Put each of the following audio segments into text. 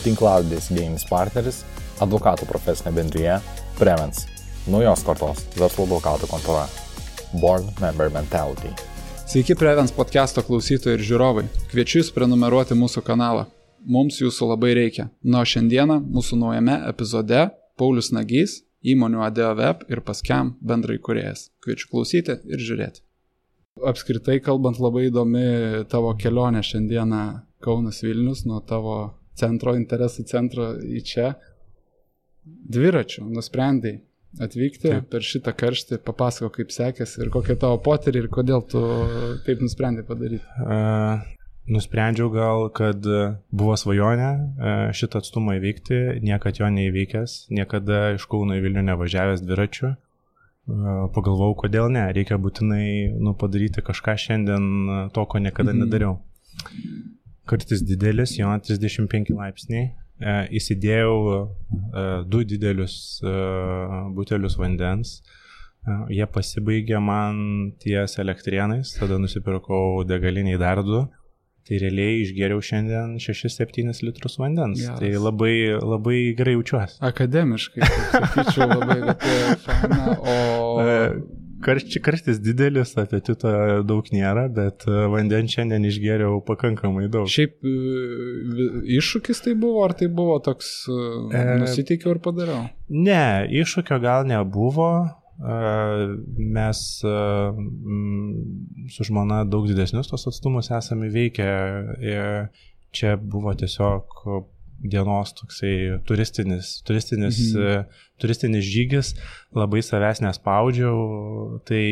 tinklalaidės idėjinis partneris, advokatų profesinė bendrija Prevens, naujos kartos verslo advokatų kontora, Born Member Mentality. Sveiki Prevens podcast'o klausytojai ir žiūrovai. Kviečiu jūs prenumeruoti mūsų kanalą. Mums jūsų labai reikia. O šiandieną mūsų naujame epizode Paulius Nagys, įmonių ADO Web ir Pascam bendraįkūrėjas. Kviečiu klausyti ir žiūrėti. Apskritai kalbant, labai įdomi tavo kelionė šiandieną Kaunas Vilnius, nuo tavo interesų centro į čia. Dviračiu nusprendai atvykti per šitą karštį, papasako kaip sekėsi ir kokie tavo potyriai ir kodėl tu taip nusprendai padaryti. Nusprendžiau gal, kad buvo svajonė šitą atstumą įveikti, niekad jo neįveikęs, niekada iš Kauno į Vilnių nevažiavęs dviračiu. Pagalvojau, kodėl ne, reikia būtinai padaryti kažką šiandien to, ko niekada nedariau. Kartais didelis, jo 35 laipsniai, įsidėjau 2 didelius butelius vandens, jie pasibaigė man ties Elektrėnais, tada nusipirkau degaliniai dar 2. Tai realiai išgėriau šiandien 6-7 litrus vandens. Geras. Tai labai gerai jaučiuosi. Akademiškai, sakyčiau, labai faina, o... Karštis didelis, apetito daug nėra, bet vandens šiandien išgėriau pakankamai daug. Šiaip iššūkis tai buvo, ar tai buvo toks nusiteikiau ir padariau? Ne, iššūkio gal nebuvo. Mes su žmona daug didesnius tos atstumus esame įveikę. Čia buvo tiesiog dienos toksai turistinis žygis, labai savęs nespaudžiau, tai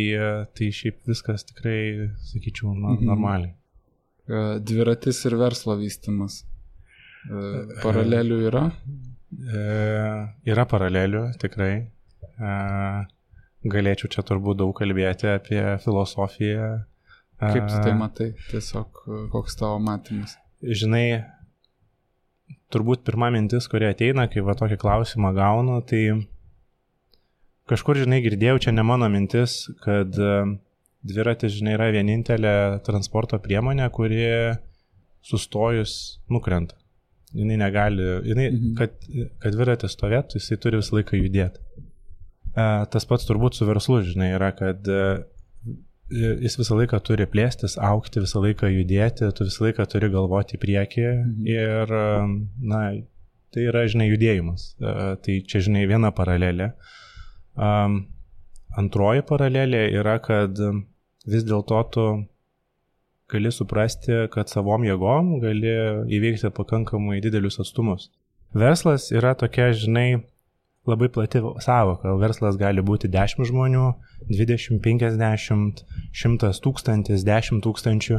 šiaip viskas tikrai, sakyčiau, normaliai. Dviratis ir verslo vystymas. Paralelių yra? Yra paralelių, tikrai. Galėčiau čia turbūt daug kalbėti apie filosofiją. Kaip tu tai matai? Tiesiog koks tavo matymas? Žinai, turbūt pirma mintis, kuri ateina, kai va tokį klausimą gaunu, tai kažkur, žinai, girdėjau, čia ne mano mintis, kad dviratis, žinai, yra vienintelė transporto priemonė, kuri sustojus nukrenta. Jinai negali, kad dviratis stovėtų, jisai turi visą laiką judėti. Tas pats turbūt su verslu, žinai, yra, kad jis visą laiką turi plėstis, augti, visą laiką judėti, tu visą laiką turi galvoti į priekį ir, tai yra, žinai, judėjimas. Tai čia, žinai, viena paralelė. Antroji paralelė yra, kad vis dėlto tu gali suprasti, kad savom jėgom gali įveikti pakankamai didelius atstumus. Verslas yra tokia, žinai, labai plati sąvoka. Verslas gali būti 10 žmonių, 20, 50, 100 tūkstantis, 10 tūkstančių.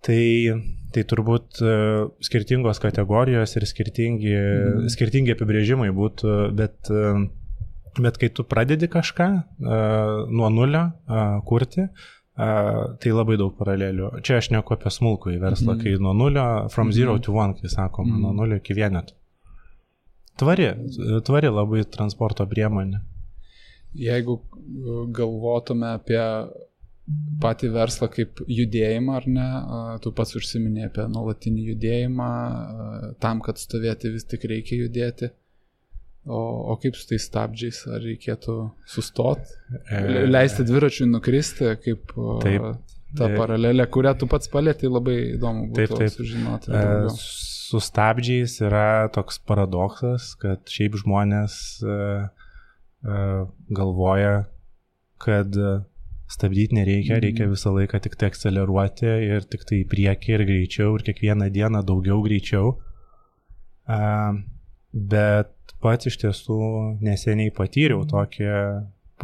Tai turbūt skirtingos kategorijos ir skirtingi apibrėžimai būtų, bet kai tu pradedi kažką nuo nulio kurti, tai labai daug paralelių. Čia aš neku apie smulkų į verslą, kai nuo nulio, from 0 to 1, kai sakoma, nuo nulio iki vieneto. Tvari labai transporto priemonė. Jeigu galvotume apie patį verslą kaip judėjimą, ar ne, tu pats užsiminė apie nuolatinį judėjimą, tam, kad stovėti vis tik reikia judėti. O kaip su tais stabdžiais, ar reikėtų sustoti, leisti dviračiui nukristi, kaip ta paralelė, kurią tu pats palėtei, labai įdomu būtų sužinoti daugiau. Su stabdžiais yra toks paradoksas, kad šiaip žmonės galvoja, kad stabdyti nereikia, reikia visą laiką tik tai akceleruoti ir tik tai į priekį ir greičiau ir kiekvieną dieną daugiau greičiau. Bet pats iš tiesų neseniai patyriau tokią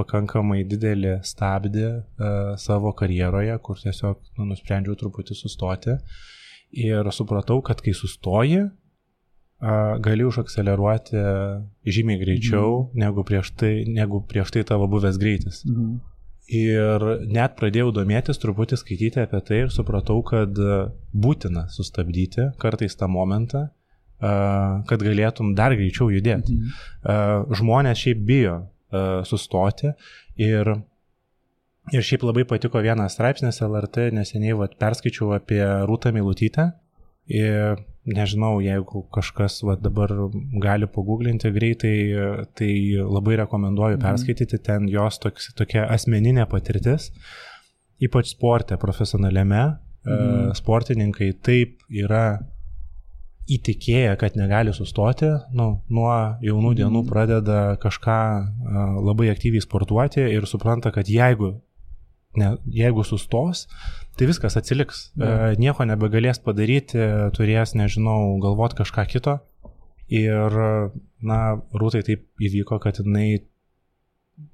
pakankamai didelį stabdį savo karjeroje, kur tiesiog nusprendžiau truputį sustoti. Ir supratau, kad kai sustoji, gali užakseleruoti žymiai greičiau negu prieš tai tavo buvęs greitis. Ir net pradėjau domėtis, truputį skaityti apie tai ir supratau, kad būtina sustabdyti kartais tą momentą, kad galėtum dar greičiau judėti. Žmonės šiaip bijo sustoti ir šiaip labai patiko vienas straipsnis LRT, neseniai perskaičiau apie Rūtą Meilutytę. Ir nežinau, jeigu kažkas dabar gali paguglinti greitai, tai labai rekomenduoju perskaityti, ten jos tokia asmeninė patirtis, ypač sporte, profesionaliame, sportininkai taip yra įtikėję, kad negali sustoti, nuo jaunų dienų pradeda kažką labai aktyviai sportuoti ir supranta, kad jeigu sustos, tai viskas atsiliks. Nieko nebegalės padaryti, turės, nežinau, galvot kažką kito. Ir, Rūtai taip įvyko, kad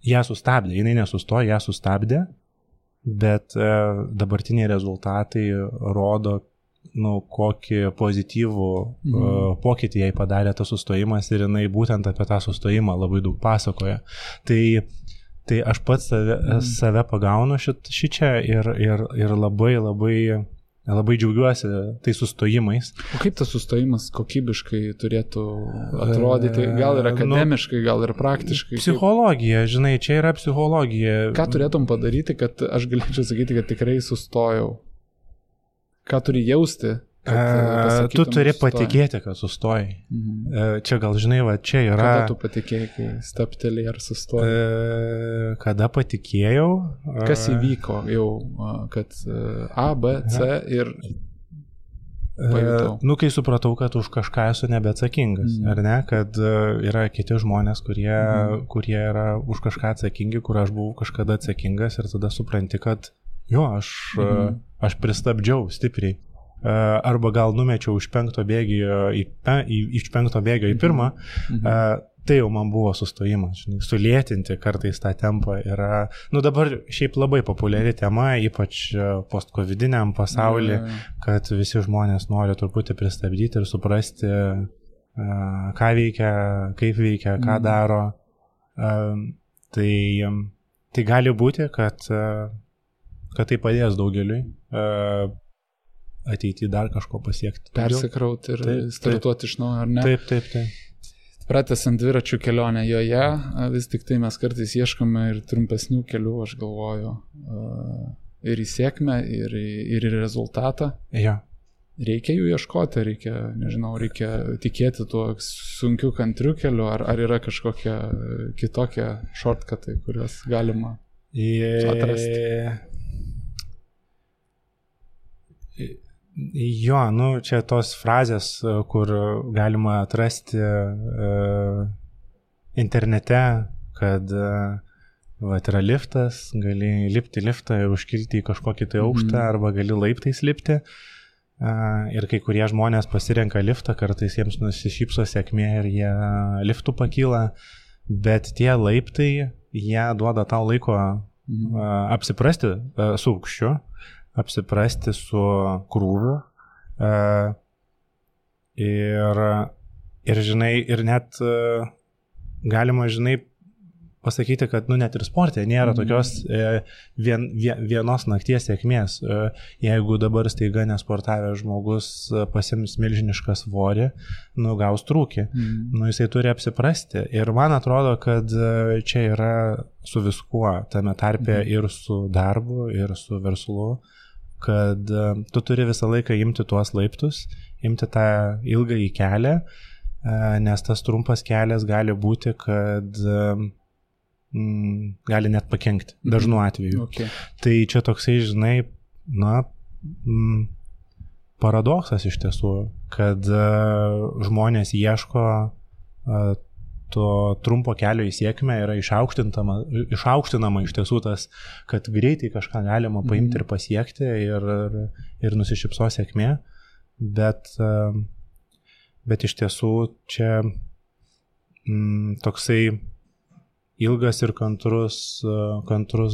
ją sustabdė. Jinai nesustojo, ją sustabdė, bet dabartiniai rezultatai rodo, kokį pozityvų pokytį jai padarė tas sustojimas ir jinai būtent apie tą sustojimą labai daug pasakoja. Tai aš pats save pagaunu šičia ir labai džiaugiuosi tai sustojimais. O kaip tas sustojimas kokybiškai turėtų atrodyti? Gal ir akademiškai, gal ir praktiškai? Psichologija, žinai, čia yra psichologija. Ką turėtum padaryti, kad aš galėčiau sakyti, kad tikrai sustojau? Ką turi jausti? Tu turi patikėti, kad sustojai. Čia gal, žinai, čia yra... Kada tu patikėjai, kai staptelį ar sustojai? Kada patikėjau? Kas įvyko jau, kad A, B, C ir pajutau? Kai supratau, kad už kažką esu nebeatsakingas, ar ne? Kad yra kiti žmonės, kurie yra už kažką atsakingi, kur aš buvau kažkada atsakingas ir tada supranti, kad aš pristabdžiau stipriai. Arba gal numečiau iš 5 bėgio į 1, tai jau man buvo sustojimas. Sulėtinti kartais tą tempą yra, dabar šiaip labai populiari tema, ypač post-covidiniam pasaulyje, kad visi žmonės nori truputį pristabdyti ir suprasti, ką veikia, kaip veikia, ką daro. Tai gali būti, kad tai padės daugeliui ateityje dar kažko pasiekti. Persikrauti ir startuoti iš naujo, ar ne? Taip. Pratęsiant dviračių kelionę joje, vis tik tai mes kartais ieškome ir trumpesnių kelių, aš galvoju, ir į sėkmę, ir į rezultatą. Ja. Reikia jų ieškoti, reikia tikėti tuo sunkiu kantriu keliu, ar yra kažkokia kitokia shortcutai, kuriuos galima atrasti. Jo, čia tos frazės, kur galima atrasti internete, kad yra liftas, gali lipti liftą ir užkilti į kažkokį tai aukštą, arba gali laiptais lipti. Ir kai kurie žmonės pasirenka liftą, kartais jiems nusišypso sėkmė ir jie liftų pakyla, bet tie laiptai, jie duoda tau laiko apsiprasti su aukščiu, apsiprasti su krūviu ir žinai, ir net galima, žinai, pasakyti, kad net ir sporte nėra tokios vienos nakties sėkmės. Jeigu dabar staiga nesportavęs žmogus pasiims milžinišką svorį, gaus trūkį. Jisai turi apsiprasti. Ir man atrodo, kad čia yra su viskuo, tame tarpe ir su darbu, ir su verslu, kad tu turi visą laiką imti tuos laiptus, imti tą ilgąjį kelią, nes tas trumpas kelias gali būti, kad gali net pakenkti, dažnu atveju. Okay. Tai čia toksai, žinai, paradoksas iš tiesų, kad žmonės ieško to trumpo kelio į sėkmę, yra išaukštinama iš tiesų tas, kad greitai kažką galima paimti ir pasiekti ir nusišypso sėkmė, bet iš tiesų čia toksai ilgas ir kantrus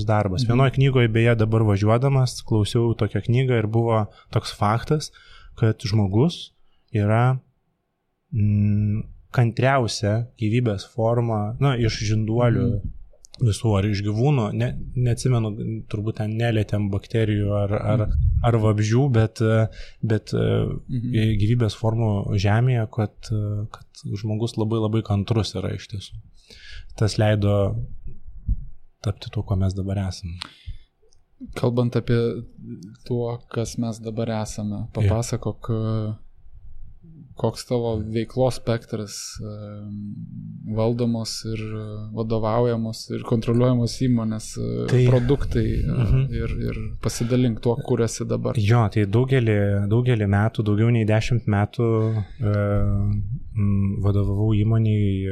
darbas. Vienoje knygoje, beje, dabar važiuodamas, klausiau tokią knygą ir buvo toks faktas, kad žmogus yra kantriausia gyvybės forma, iš žinduolių visų, ar iš gyvūnų, neatsimenu, turbūt ten nelietėm bakterijų ar vabzdžių, bet gyvybės formų žemėje, kad žmogus labai labai kantrus yra iš tiesų. Tas leido tapti tuo, ko mes dabar esame. Kalbant apie tuo, kas mes dabar esame, papasakok koks tavo veiklos spektras valdomos ir vadovaujamos ir kontroliuojamos įmonės produktai ir pasidalink tuo, kur esi dabar. Jo, tai daugelį metų, daugiau nei 10 metų vadovavau įmoniai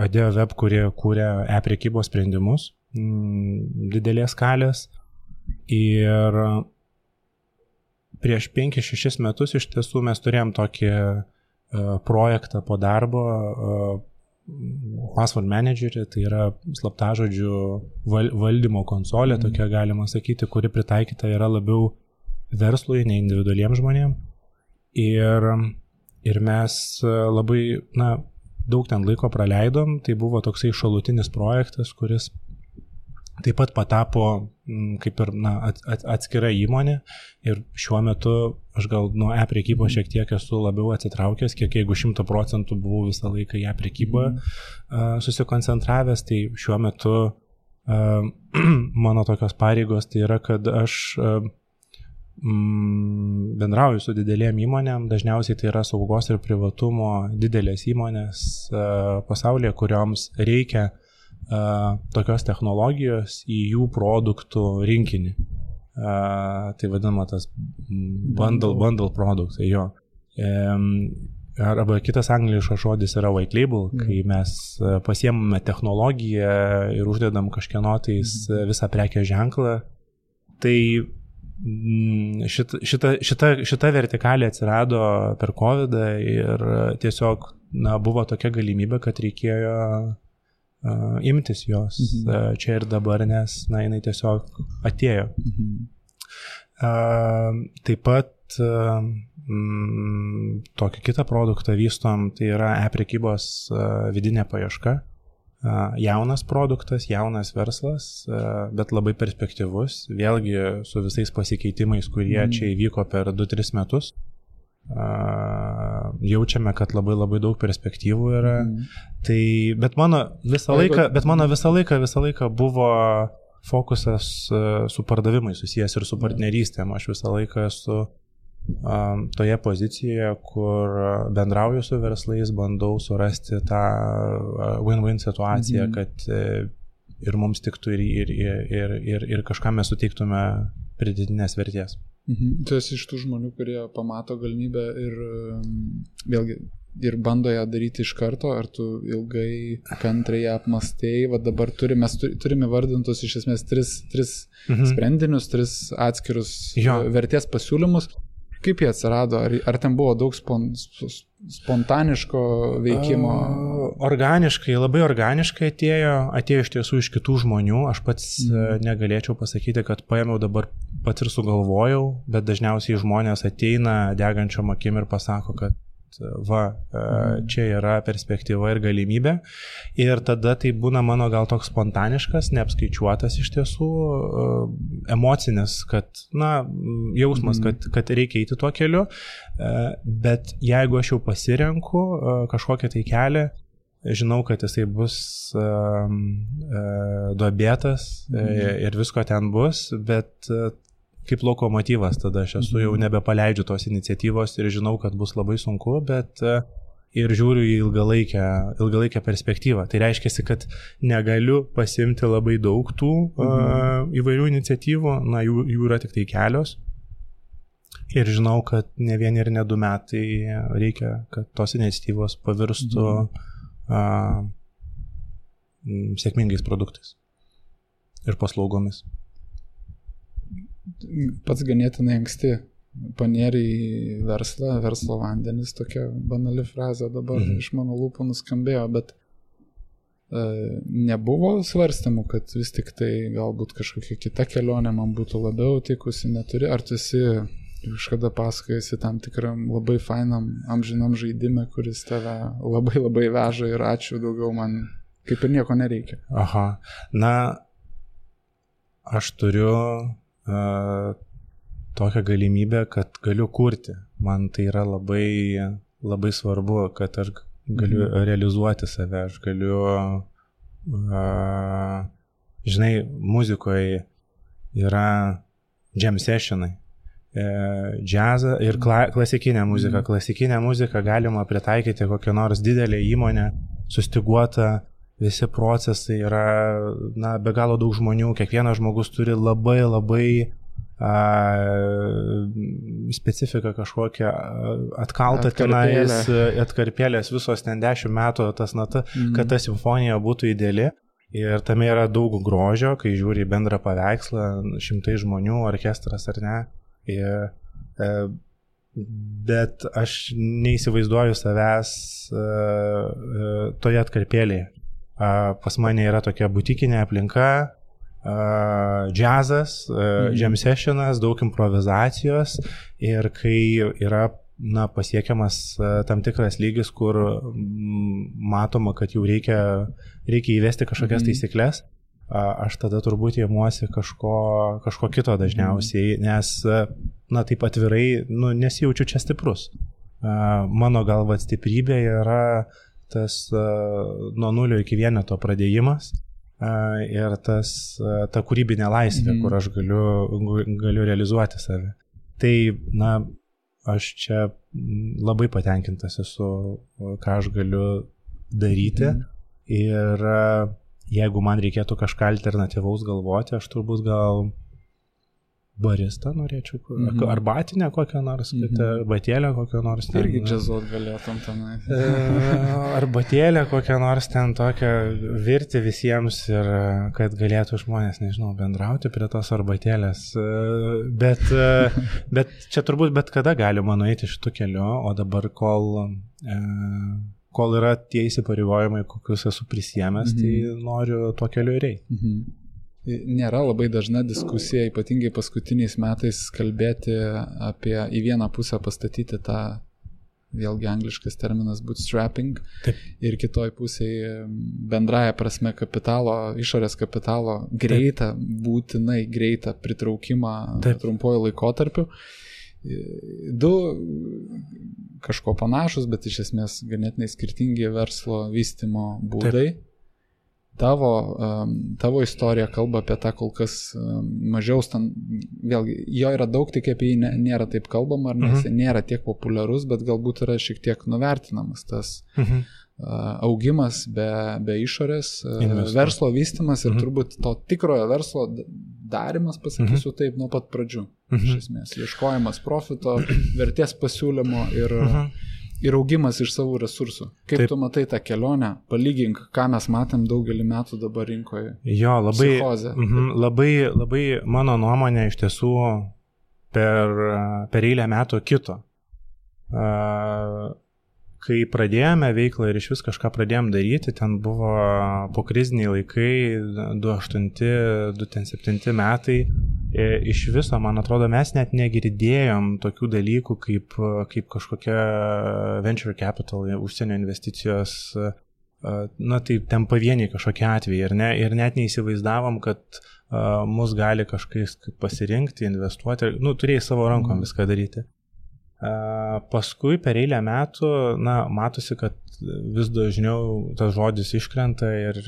AdeoWeb, kurie kūrė e-prekybos sprendimus didelės skalės. Ir prieš 5-6 metus iš tiesų mes turėjom tokį projektą po darbo, Password Managerį, tai yra slaptažodžių valdymo konsolė, tokia galima sakyti, kuri pritaikyta yra labiau verslui, ne individualiems žmonėms. Ir mes labai daug ten laiko praleidom, tai buvo toksai šalutinis projektas, kuris taip pat patapo kaip ir atskira įmonė ir šiuo metu aš gal nuo e-prekybos šiek tiek esu labiau atsitraukęs, kiek jeigu 100% buvau visą laiką į e-prekybą susikoncentravęs, tai šiuo metu mano tokios pareigos tai yra, kad aš bendrauju su didelėm įmonėm, dažniausiai tai yra saugos ir privatumo didelės įmonės pasaulyje, kurioms reikia tokios technologijos į jų produktų rinkinį. Tai vadinama tas bundle produktai, jo. Arba kitas angliškas žodis yra white label, kai mes pasiemame technologiją ir uždedam kažkieno tais visą prekės ženklą. Tai šita vertikalė atsirado per COVID ir tiesiog buvo tokia galimybė, kad reikėjo imtis jos čia ir dabar, nes jinai tiesiog atėjo. Taip pat tokį kitą produktą vystom, tai yra e-prekybos vidinė paieška. Jaunas produktas, jaunas verslas, bet labai perspektyvus, vėlgi su visais pasikeitimais, kurie čia įvyko per 2-3 metus. Jaučiame, kad labai daug perspektyvų yra. Tai, bet mano visą laiką buvo fokusas su pardavimais susijęs ir su partnerystėm. Aš visą laiką esu toje pozicijoje, kur bendrauju su verslais, bandau surasti tą win-win situaciją, kad ir mums tiktų ir kažką mes suteiktume pridėtinės vertės. Tu esi iš tų žmonių, kurie pamato galimybę ir vėlgi ir bando ją daryti iš karto, ar tu ilgai kantriai apmastėjai, va dabar turime vardintus iš esmės 3 sprendinius, 3 atskirus vertės pasiūlymus. Kaip jie atsirado? Ar ten buvo daug spontaniško veikimo? Labai organiškai atėjo iš tiesų iš kitų žmonių. Aš pats negalėčiau pasakyti, kad paėmiau dabar pats ir sugalvojau, bet dažniausiai žmonės ateina degančiom akim ir pasako, kad čia yra perspektyva ir galimybė. Ir tada tai būna mano gal toks spontaniškas, neapskaičiuotas iš tiesų, emocinis, kad, jausmas, kad reikia eiti tuo keliu. Bet jeigu aš jau pasirenku kažkokią tai kelią, žinau, kad jisai bus duobėtas ir visko ten bus, bet kaip lokomotyvas, tada aš esu jau nebepaleidžiu tos iniciatyvos ir žinau, kad bus labai sunku, bet ir žiūriu į ilgalaikę perspektyvą. Tai reiškia, kad negaliu pasimti labai daug tų įvairių iniciatyvų, jų yra tik tai kelios. Ir žinau, kad ne 1 ir ne 2 metai reikia, kad tos iniciatyvos pavirstų sėkmingais produktais ir paslaugomis. Pats ganėtinai anksti panėrė į verslo vandenis, tokia banali frazė dabar iš mano lūpų nuskambėjo, bet nebuvo svarstymų, kad vis tik tai galbūt kažkokia kita kelionė man būtų labiau tikusi, neturi, ar tu esi kažkada pasakojasi tam tikram labai fainam amžinam žaidime, kuris tave labai veža ir ačiū, daugiau man kaip ir nieko nereikia. Aš turiu tokią galimybę, kad galiu kurti. Man tai yra labai svarbu, kad aš galiu realizuoti save, aš galiu, žinai, muzikoje yra jam sessionai. džiazą ir klasikinę muziką. Klasikinę muziką galima pritaikyti kokią nors didelę įmonę, sustiguota, visi procesai yra, be galo daug žmonių, kiekvienas žmogus turi labai specifiką kažkokią atkaltą tenais, atkarpėlės visos ten 10 metų, kad ta simfonija būtų ideali. Ir tame yra daug grožio, kai žiūri bendrą paveikslą, 100 žmonių, orkestras ar ne. Bet aš neįsivaizduoju savęs toje atkarpėlėje. Pas mane yra tokia butikinė aplinka, džiazas, jam sessionas, daug improvizacijos ir kai yra pasiekiamas tam tikras lygis, kur matoma, kad jau reikia įvesti kažkokias taisyklės, aš tada turbūt įmuosi kažko kito dažniausiai, nes, taip atvirai, nesijaučiu čia stiprus. Mano galva stiprybė yra tas nuo 0 iki 1 pradėjimas ir ta kūrybinė laisvė, kur aš galiu realizuoti save. Tai, aš čia labai patenkintas esu, ką aš galiu daryti ir jeigu man reikėtų kažką alternatyvaus galvoti, aš turbūt gal baristą norėčiau, arbatinę kokią nors, arbatėlę kokią nors. Irgi džiazuot galėtum tenai. Arbatėlę kokią nors ten tokią virti visiems ir kad galėtų žmonės, nežinau, bendrauti prie tos arbatėlės. Bet čia turbūt bet kada galima nueiti šitų kelių, o dabar kol yra tie įsipareigojimai, kokius esu prisiėmęs, tai noriu tuo keliu ir eiti. Nėra labai dažna diskusija, ypatingai paskutiniais metais kalbėti apie į vieną pusę pastatyti tą, vėlgi angliškas terminas bootstrapping. Taip. Ir kitoj pusėje bendraja prasme kapitalo, išorės kapitalo greitą, būtinai greitą pritraukimą trumpuoju laikotarpiu. Du kažko panašus, bet iš esmės ganėtinai skirtingi verslo vystymo būdai. Taip. Tavo istorija kalba apie tą kol kas mažiau, vėlgi, jo yra daug, tik apie jį nėra taip kalbama, ar nes nėra tiek populiarus, bet galbūt yra šiek tiek nuvertinamas tas augimas be išorės, verslo vystymas ir turbūt to tikrojo verslo darimas, pasakysiu taip, nuo pat pradžių. Iš esmės, ieškojimas profito, vertės pasiūlymo ir augimas iš savo resursų. Kaip tu matai tą kelionę, palygink, ką mes matėm daugelį metų dabar rinkoje. Jo, labai mano nuomonė iš tiesų per eilę metų kito. Kai pradėjome veiklą ir iš vis kažką pradėjom daryti, ten buvo pokriziniai laikai, 2008-2007 metai. Iš viso, man atrodo, mes net negirdėjom tokių dalykų kaip kažkokia venture capital, užsienio investicijos, tai ten pavieniai kažkokie atvejai, ir net neįsivaizdavom, kad mus gali kažkas pasirinkti, investuoti, turėjai savo rankom viską daryti. Paskui per eilę metų, matosi, kad vis dažniau tas žodis iškrenta ir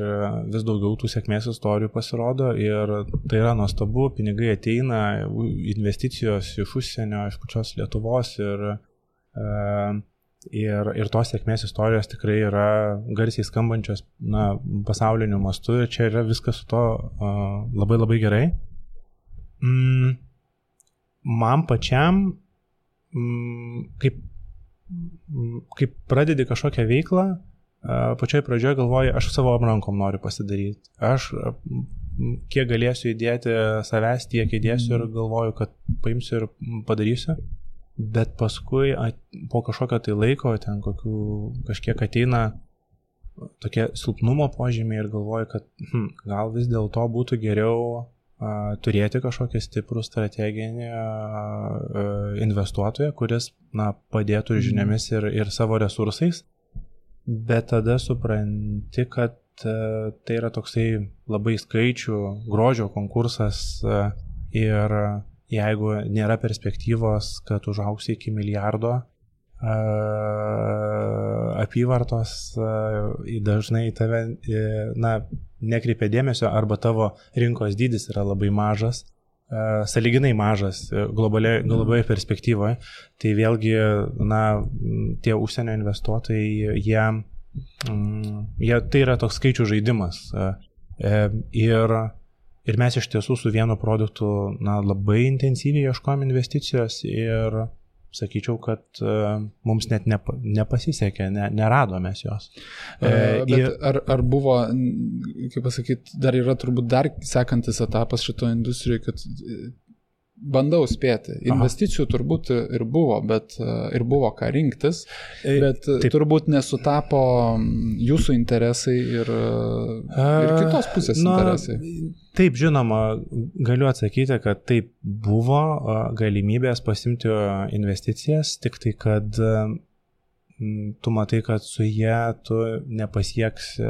vis daugiau tų sėkmės istorijų pasirodo ir tai yra nuostabu, pinigai ateina, investicijos iš užsienio, iš pačios Lietuvos ir tos sėkmės istorijos tikrai yra garsiai skambančios pasauliniu mastu ir čia yra viskas su to labai labai gerai. Man pačiam kaip pradedi kažkokią veiklą, pačioj pradžioje galvoju, aš savo rankom noriu pasidaryti. Aš kiek galėsiu įdėti savęs, tiek įdėsiu ir galvoju, kad paimsiu ir padarysiu. Bet paskui po kažkokio tai laiko, ten kažkiek ateina tokie silpnumo požymiai ir galvoju, kad gal vis dėlto būtų geriau turėti kažkokį stiprų strateginį investuotoją, kuris padėtų ir žiniomis ir savo resursais, bet tada supranti, kad tai yra toksai labai skaičių, grožio konkursas ir jeigu nėra perspektyvos, kad užauksi iki milijardo apyvartos, dažnai tave nekreipia dėmesio arba tavo rinkos dydis yra labai mažas, sąlyginai mažas globaliai perspektyvoje, tai vėlgi, tie užsienio investuotojai, jie tai yra toks skaičių žaidimas. Ir mes iš tiesų su vienu produktu labai intensyviai ieškojom investicijos ir sakyčiau, kad mums net nepasisekė, neradome jos. Bet ar buvo, kaip pasakyti, dar yra turbūt dar sekantis etapas šito industrijoje, kad bandau spėti. Investicijų turbūt ir buvo, bet ir buvo ką rinktis, bet turbūt nesutapo jūsų interesai ir kitos pusės interesai. Taip, žinoma, galiu atsakyti, kad taip buvo galimybės pasimti investicijas, tik tai, kad tu matai, kad su jie tu nepasieksi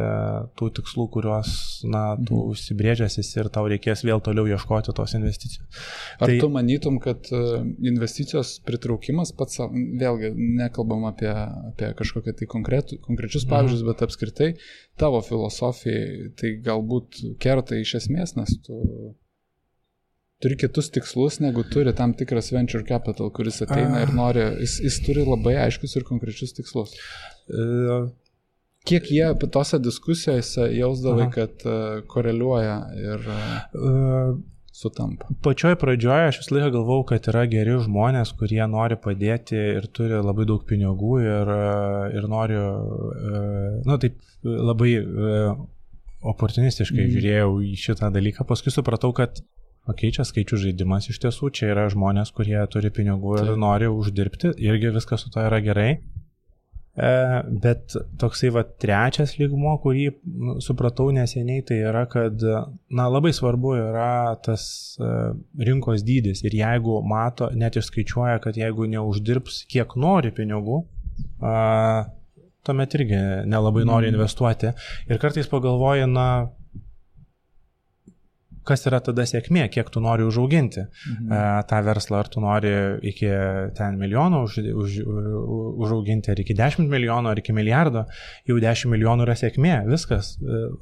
tų tikslų, kuriuos tu užsibrėžęsis ir tau reikės vėl toliau ieškoti tos investicijos. Ar tu manytum, kad investicijos pritraukimas pats, vėlgi nekalbam apie kažkokią tai konkrečius pavyzdžius, bet apskritai tavo filosofijai tai galbūt kerta iš esmės, nes tu turi kitus tikslus, negu turi tam tikras venture capital, kuris ateina ir nori, jis turi labai aiškus ir konkrečius tikslus. Kiek jie tose diskusijose jausdavai, kad koreliuoja ir sutampa? Pačioj pradžioje aš visą laiką galvau, kad yra geri žmonės, kurie nori padėti ir turi labai daug pinigų ir nori, taip labai oportunistiškai žiūrėjau į šitą dalyką. Paskui supratau, kad čia skaičių žaidimas iš tiesų, čia yra žmonės, kurie turi pinigų ir nori uždirbti, irgi viskas su to yra gerai. Bet toksai trečias lygmuo, kurį supratau neseniai, tai yra, kad labai svarbu yra tas rinkos dydis ir jeigu mato, net išskaičiuoja, kad jeigu neuždirbs kiek nori pinigų, tuomet irgi nelabai nori investuoti. Ir kartais pagalvoji, kas yra tada sėkmė, kiek tu nori užauginti tą verslą, ar tu nori iki 10 milijonų užauginti, ar iki 10 milijonų, ar iki milijardo, jau 10 milijonų yra sėkmė, viskas,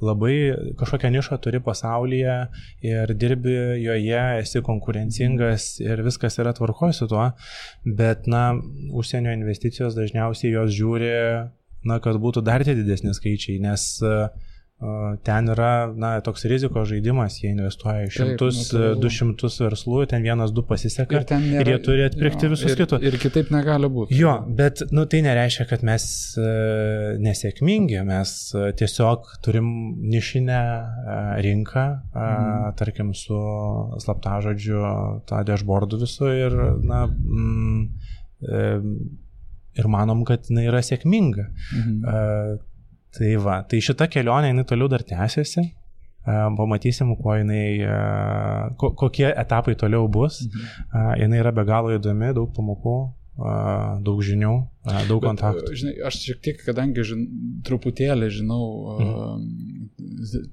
labai kažkokią nišą turi pasaulyje ir dirbi joje, esi konkurencingas ir viskas yra tvarkoj su tuo, bet užsienio investicijos dažniausiai jos žiūri, kad būtų dar tie didesni skaičiai, nes ten yra toks rizikos žaidimas, jie investuoja į 100-200 verslų, ten 1-2 pasiseka ir jie turi atpirkti visus kitus. Ir kitaip negali būti. Jo, bet tai nereiškia, kad mes nesėkmingi, mes tiesiog turim nišinę rinką, tarkim su slaptažodžiu tą dashboardų visu ir ir manom, kad jinai yra sėkminga. Tai šita kelionė, jinai toliau dar tęsiasi, pamatysim, kokie etapai toliau bus, jinai yra be galo įdomi, daug pamokų, daug žinių, daug kontaktų. Žinai, aš šiek tiek, kadangi truputėlį žinau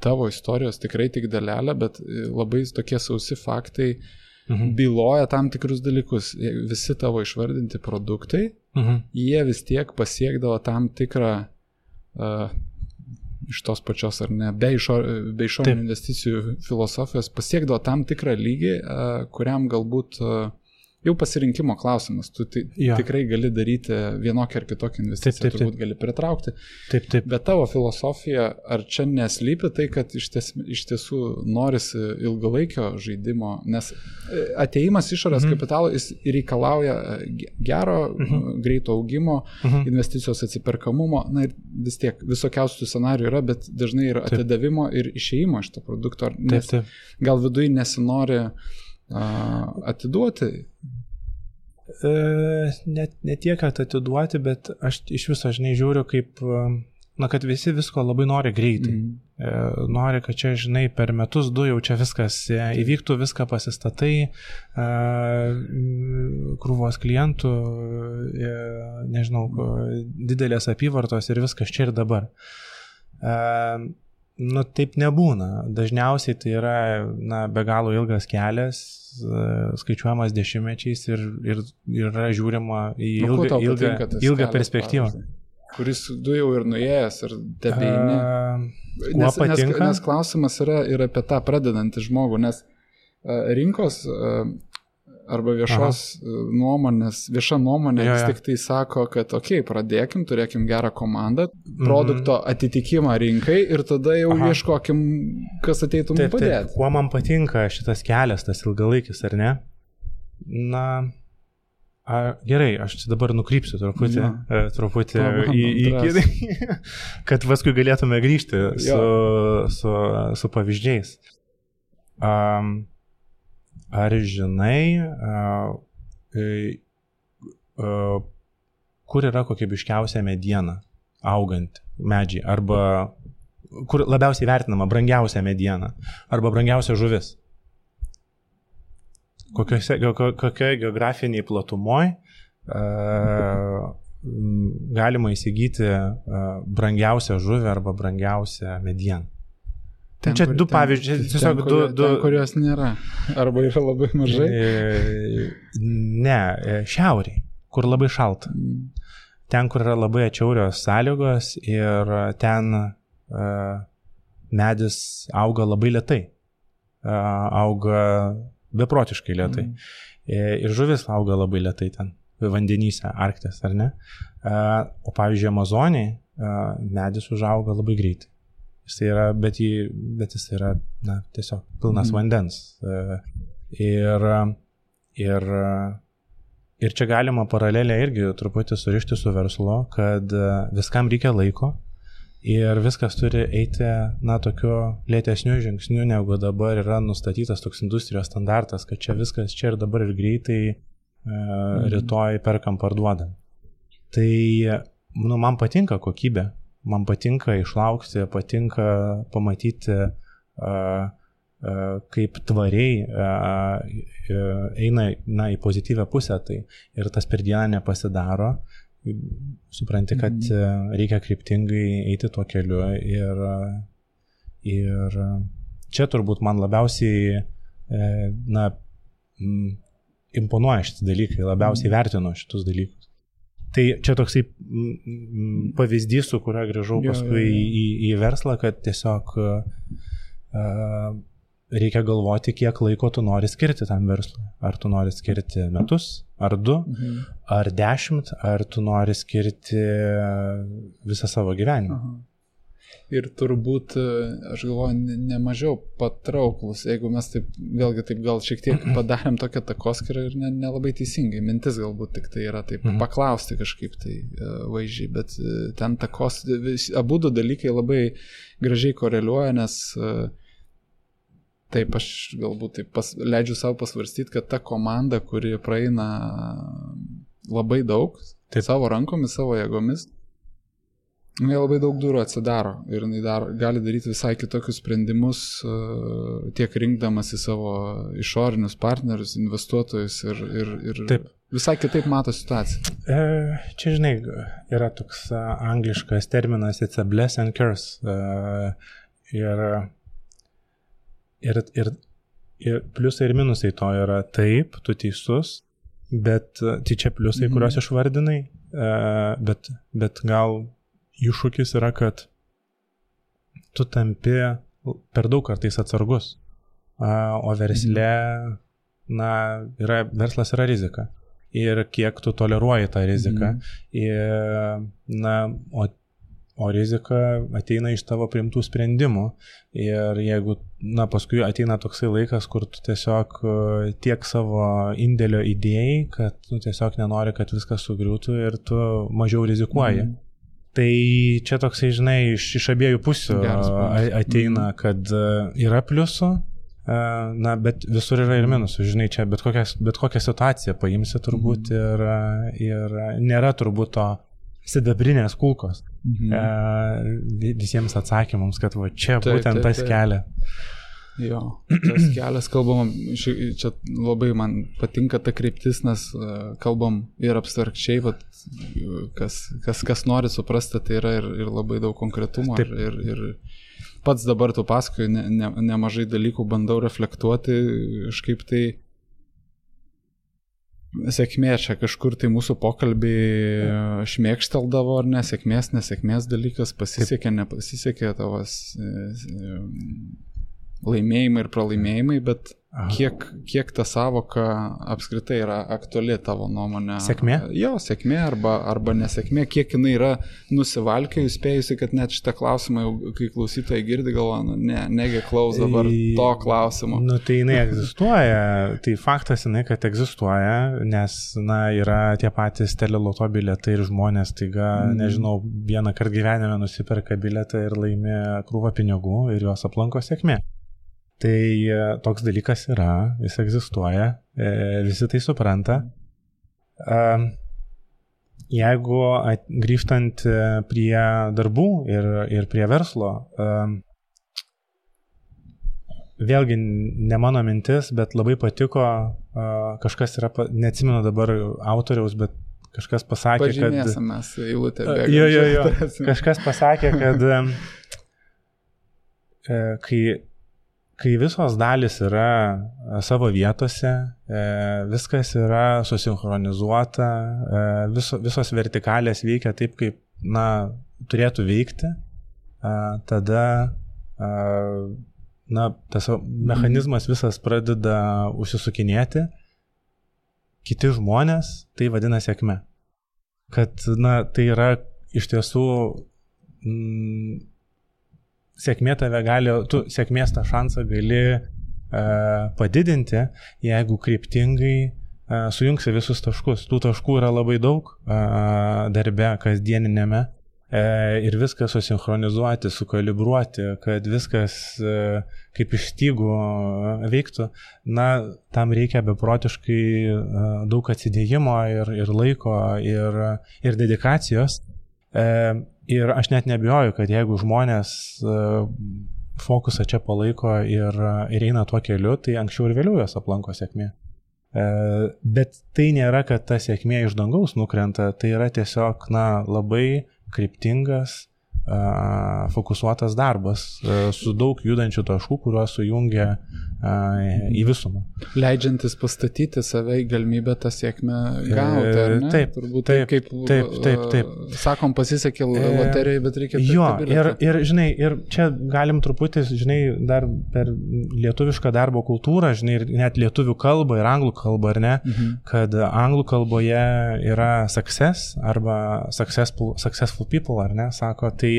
tavo istorijos, tikrai tik dalelę, bet labai tokie sausi faktai byloja tam tikrus dalykus. Visi tavo išvardinti produktai, jie vis tiek pasiekdavo tam tikrą iš tos pačios ar ne, be išorinių investicijų filosofijos pasiekdavo tam tikrą lygį, kuriam galbūt jau pasirinkimo klausimas. Tu tikrai gali daryti vienokią ar kitokią investiciją, turbūt gali pritraukti. Bet tavo filosofija, ar čia neslypi tai, kad iš tiesų norisi ilgalaikio žaidimo, nes atėjimas išorės kapitalo jis reikalauja gero, greito augimo, investicijos atsiperkamumo, ir vis tiek visokiausių scenarijų yra, bet dažnai yra atidavimo ir išėjimo iš to produkto, nes gal viduje nesinori atiduoti? Ne tiek, kad atiduoti, bet aš iš viso, žinai, žiūriu kaip, kad visi visko labai nori greitai. Nori, kad čia, žinai, per metus 2 jau čia viskas įvyktų, viską pasistatai, krūvos klientų, nežinau, didelės apyvartos ir viskas čia ir dabar. Taip nebūna. Dažniausiai tai yra be galo ilgas kelias, skaičiuojamas dešimtmečiais ir yra žiūrima į ilgą perspektyvą. Kuris tu jau ir nuėjęs ir tebeini. Nes klausimas yra ir apie tą pradedantį žmogų, nes rinkos arba nuomonės, vieša nuomonė vis tik tai sako, kad pradėkim, turėkim gerą komandą, produkto atitikimą rinkai ir tada jau ieškokim, kas ateitų mums padėti. Kuo man patinka šitas kelias, tas ilgalaikis, ar ne? Na, gerai, aš čia dabar nukrypsiu truputį kad paskui galėtume grįžti su pavyzdžiais. Ar žinai, kur yra kokybiškiausia mediena auganti medžiai, arba kur labiausiai vertinama brangiausia mediena, arba brangiausia žuvis? Kokioje geografiniai platumoj galima įsigyti brangiausią žuvį arba brangiausią medieną? Čia du pavyzdžiai, tiesiog ten, kurios nėra, arba yra labai mažai. Ne, šiauriai, kur labai šalta. Ten, kur yra labai atšiaurios sąlygos ir ten medis auga labai lėtai. Auga beprotiškai lėtai. Ir žuvis auga labai lėtai ten, vandenyse, Arktės, ar ne? O pavyzdžiui, Amazonėje medis užauga labai greitai. Bet jis yra tiesiog pilnas vandens. Ir čia galima paralelę irgi truputį surišti su verslu, kad viskam reikia laiko ir viskas turi eiti tokiu lėtesniu žingsniu, negu dabar yra nustatytas toks industrijos standartas, kad čia viskas čia ir dabar ir greitai rytoj perkam parduodam. Tai man patinka kokybė. Man patinka išlaukti, patinka pamatyti, kaip tvariai eina į pozityvę pusę, tai ir tas per dieną nepasidaro, supranti, kad reikia kryptingai eiti tuo keliu ir čia turbūt man labiausiai imponuoja šitie dalykai, labiausiai vertinu šitus dalykus. Tai čia toksai pavyzdys, su kuriuo grįžau paskui į verslą, kad tiesiog reikia galvoti, kiek laiko tu nori skirti tam verslui. Ar tu nori skirti metus, ar 2, ar 10, ar tu nori skirti visą savo gyvenimą. Ir turbūt, aš galvoju, nemažiau patrauklus, jeigu mes taip, vėlgi taip gal šiek tiek padarėm tokią takoskirą ir nelabai teisingai, mintis galbūt tik tai yra taip paklausti kažkaip tai vaizdžiai, bet ten abudu dalykai labai gražiai koreliuoja, nes taip aš galbūt taip leidžiu savo pasvarstyti, kad ta komanda, kuri praeina labai daug, savo rankomis, savo jėgomis, jie labai daug durų atsidaro ir gali daryti visai kitokius sprendimus, tiek rinkdamas į savo išorinius partnerius, investuotojus ir visai kitaip mato situaciją. Čia, žinai, yra toks angliškas terminas, it's a bless and curse. Ir pliusai ir minusai to yra taip, tu teisus, bet tai čia pliusai, kuriuos išvardinai, bet gal iššūkis yra, kad tu tampi per daug kartais atsargus, o versle, verslas yra rizika. Ir kiek tu toleruoji tą riziką. O rizika ateina iš tavo priimtų sprendimų. Ir jeigu, paskui ateina toksai laikas, kur tu tiesiog tiek savo indėlio idėjai, kad tu tiesiog nenori, kad viskas sugriūtų ir tu mažiau rizikuoji. Tai čia toksai, žinai, iš abiejų pusių ateina, kad yra pliusų, bet visur yra ir minusų, žinai, čia bet kokią situaciją paimsi turbūt ir nėra turbūt to sidabrinės kulkos visiems atsakymams, kad va čia būtent tas kelias. Jo, tas kelias, kalbam, čia labai man patinka ta kryptis, nes kalbam ir abstrakčiai, kas nori suprasti, tai yra ir labai daug konkretumo. Ir pats dabar tu pasakoju, nemažai dalykų bandau reflektuoti, kažkaip tai sėkmė čia kažkur tai mūsų pokalbį šmėkšteldavo, ar nesėkmės dalykas, pasisekė, nepasisekė tavas laimėjimai ir pralaimėjimai, bet kiek ta savoka apskritai yra aktuali tavo nuomonė? Sėkmė? Jo, sėkmė arba nesėkmė, kiek jinai yra nusivalkiojus, spėjusi, kad net šitą klausimą, kai klausytojai girdi, galvoja, negi klaus dabar to klausimo. Nu, tai jinai egzistuoja, tai faktas jinai, kad egzistuoja, nes, yra tie patys teleloto bilietai ir žmonės, taiga, nežinau, vieną kartą gyvenime nusiperka bilietą ir laimi krūvą pinigų ir juos aplanko sėkmė. Tai toks dalykas yra, jis egzistuoja, visi tai supranta. Jeigu grįžtant prie darbų ir prie verslo, vėlgi ne mano mintis, bet labai patiko, kažkas yra, neatsimenu dabar autoriaus, bet kažkas pasakė, pažymėsim mes eilutę bėgam. Jo. Kažkas pasakė, kad kai visos dalis yra savo vietose, viskas yra susinchronizuota, visos vertikalės veikia taip, kaip, turėtų veikti, tada, tas mechanizmas visas pradeda užsisukinėti, kiti žmonės tai vadina sėkme. Kad, tai yra iš tiesų sėkmė tave gali, tu sėkmės tą šansą gali padidinti, jeigu kryptingai sujungsi visus taškus. Tų taškų yra labai daug darbe, kasdieninėme, ir viską susinchronizuoti, sukalibruoti, kad viskas kaip iš stygų veiktų. Tam reikia beprotiškai daug atsidėjimo ir laiko ir dedikacijos. Ir aš net nebijoju, kad jeigu žmonės fokusą čia palaiko ir eina tuo keliu, tai anksčiau ir vėliau jas aplanko sėkmė. Bet tai nėra, kad ta sėkmė iš dangaus nukrenta, tai yra tiesiog labai kryptingas, fokusuotas darbas su daug judančių taškų, kuriuos sujungia į visumą. Leidžiantis pastatyti save į galimybę tą sėkmę gauti, ar ne? Taip. Sakom, pasisekė loterijai, bet reikia... Jo, ir čia galim truputį, dar per lietuvišką darbo kultūrą, ir net lietuvių kalbą ir anglų kalbą, ar ne, kad anglų kalboje yra success arba successful people, ar ne, sako, tai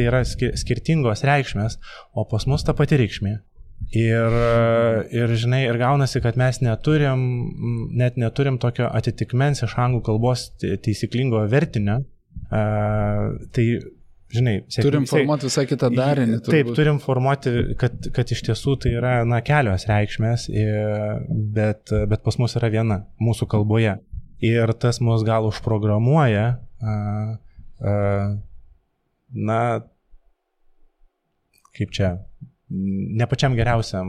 yra skirtingos reikšmės, o pas mus ta pati reikšmė. Ir gaunasi, kad mes neturim tokio atitikmens iš anglų kalbos taisyklingo vertinio. Tai, turim formuoti visą kitą darinį. Taip, turim formuoti, kad iš tiesų tai yra kelios reikšmės, bet pas mus yra viena mūsų kalboje. Ir tas mus gal užprogramuoja, kaip čia, ne pačiam geriausiam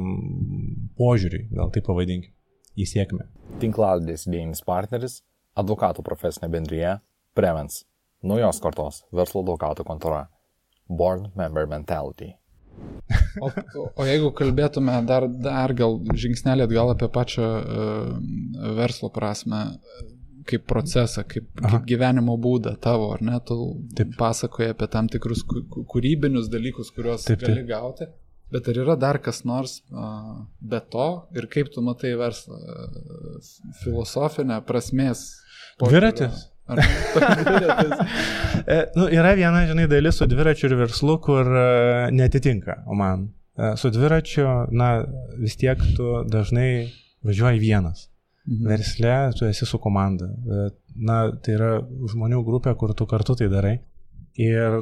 požiūriui, gal taip pavadinkim, į sėkmę. Tinklalaidės idėjinis partneris, advokatų profesinė bendrija Prevens, naujos kartos verslo advokatų kontora, Board Member Mentality. O jeigu kalbėtume dar gal žingsnelį atgal apie pačią verslo prasme, kaip procesą, kaip gyvenimo būdą tavo, ar ne, tu pasakoji apie tam tikrus kūrybinius dalykus, kuriuos gali gauti. Bet ar yra dar kas nors be to ir kaip tu matai verslą? Filosofinę prasmės? Dviratis. Yra viena, dalis su dviračiu ir verslu, kur netitinka man. Su dviračiu, vis tiek tu dažnai važiuoji vienas. Versle tu esi su komanda. Tai yra žmonių grupė, kur tu kartu tai darai. Ir,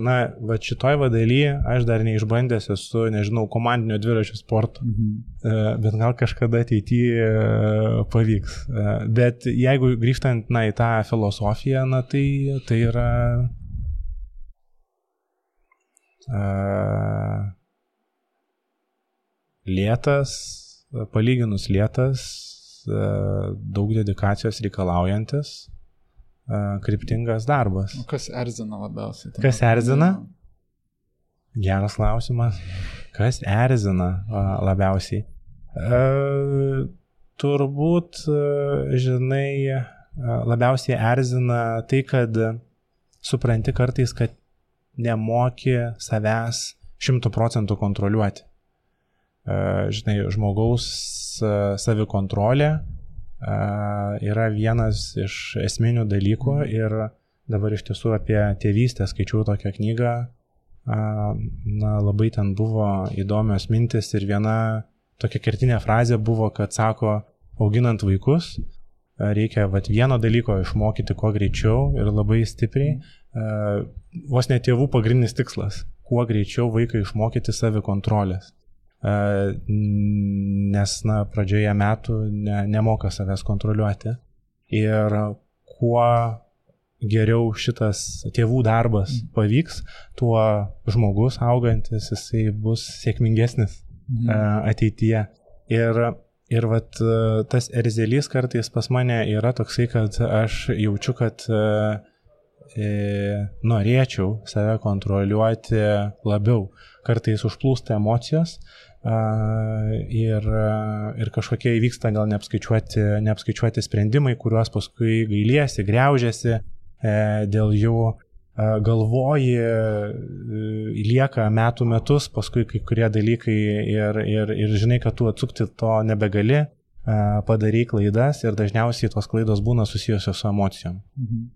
šitoj daly aš dar neišbandęs esu, komandinio dviračių sporto, bet gal kažkada ateityje pavyks. Bet jeigu grįžtant, į tą filosofiją, tai yra lėtas, palyginus lėtas, daug dedikacijos reikalaujantis, kryptingas darbas. O kas erzina labiausiai? Kas erzina? Geras klausimas. Kas erzina labiausiai? Turbūt, labiausiai erzina tai, kad supranti kartais, kad nemoki savęs 100% kontroliuoti. žinai, žmogaus savikontrolė yra vienas iš esminių dalykų ir dabar iš tiesų apie tėvystę skaičiau tokią knygą, labai ten buvo įdomios mintis ir viena tokia kertinė frazė buvo, kad sako, auginant vaikus, reikia vieno dalyko išmokyti kuo greičiau ir labai stipriai, vos ne tėvų pagrindinis tikslas, kuo greičiau vaiką išmokyti savikontrolės, nes pradžioje metų nemoka savęs kontroliuoti ir kuo geriau šitas tėvų darbas pavyks, tuo žmogus augantis, jisai bus sėkmingesnis ateityje. Ir tas erzelys kartais pas mane yra toksai, kad aš jaučiu, kad norėčiau save kontroliuoti labiau. Kartais užplūsta emocijos ir kažkokie įvyksta gal neapskaičiuoti sprendimai, kuriuos paskui gailiesi, griaužiasi, dėl jų galvoji, lieka metus, paskui kai kurie dalykai ir žinai, kad tu atsukti to nebegali, padarai klaidas ir dažniausiai tos klaidos būna susijusios su emocijom.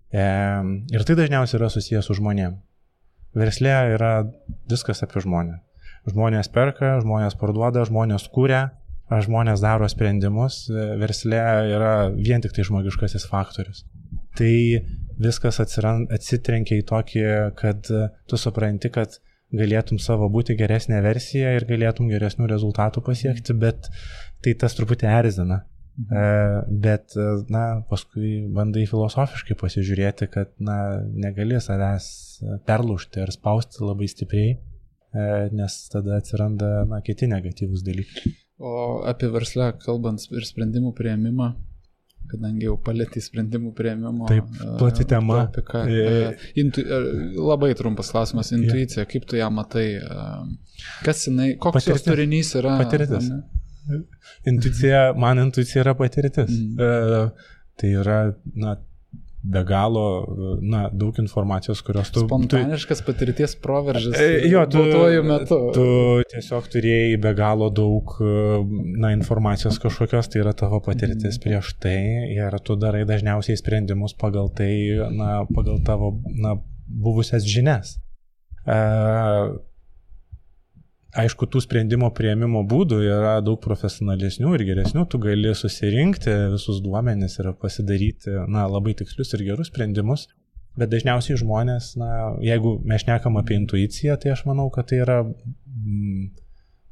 Ir tai dažniausiai yra susijęs su žmonėm. Versle yra viskas apie žmonę. Žmonės perka, žmonės parduoda, žmonės kuria, žmonės daro sprendimus. Versle yra vien tik tai žmogiškasis faktorius. Tai viskas atsitrenkia į tokį, kad tu supranti, kad galėtum savo būti geresnė versija ir galėtum geresnių rezultatų pasiekti, bet tai tas truputį erzina. Bet, paskui bandai filosofiškai pasižiūrėti, kad, negali savęs perlaužti ar spausti labai stipriai, nes tada atsiranda, kiti negatyvūs dalykai. O apie verslą kalbant ir sprendimų priėmimą, kadangi jau palėtį sprendimų priėmimo. Taip, plati tema. Labai trumpas klausimas, intuicija, kaip tu ją matai, kas jinai, koks jos turinys yra? Patirtis. Man intuicija yra patirtis. Tai yra, be galo, daug informacijos, kurios tu... Spontaniškas patirties proveržis duotuoju metu. Tu tiesiog turėjai be galo daug informacijos kažkokios, tai yra tavo patirtis prieš tai ir tu darai dažniausiai sprendimus pagal tai, pagal tavo buvusias žinias. Aišku, tų sprendimo priėmimo būdų yra daug profesionalesnių ir geresnių, tu gali susirinkti visus duomenis ir pasidaryti labai tikslius ir gerus sprendimus, bet dažniausiai žmonės, jeigu mes šnekam apie intuiciją, tai aš manau, kad tai yra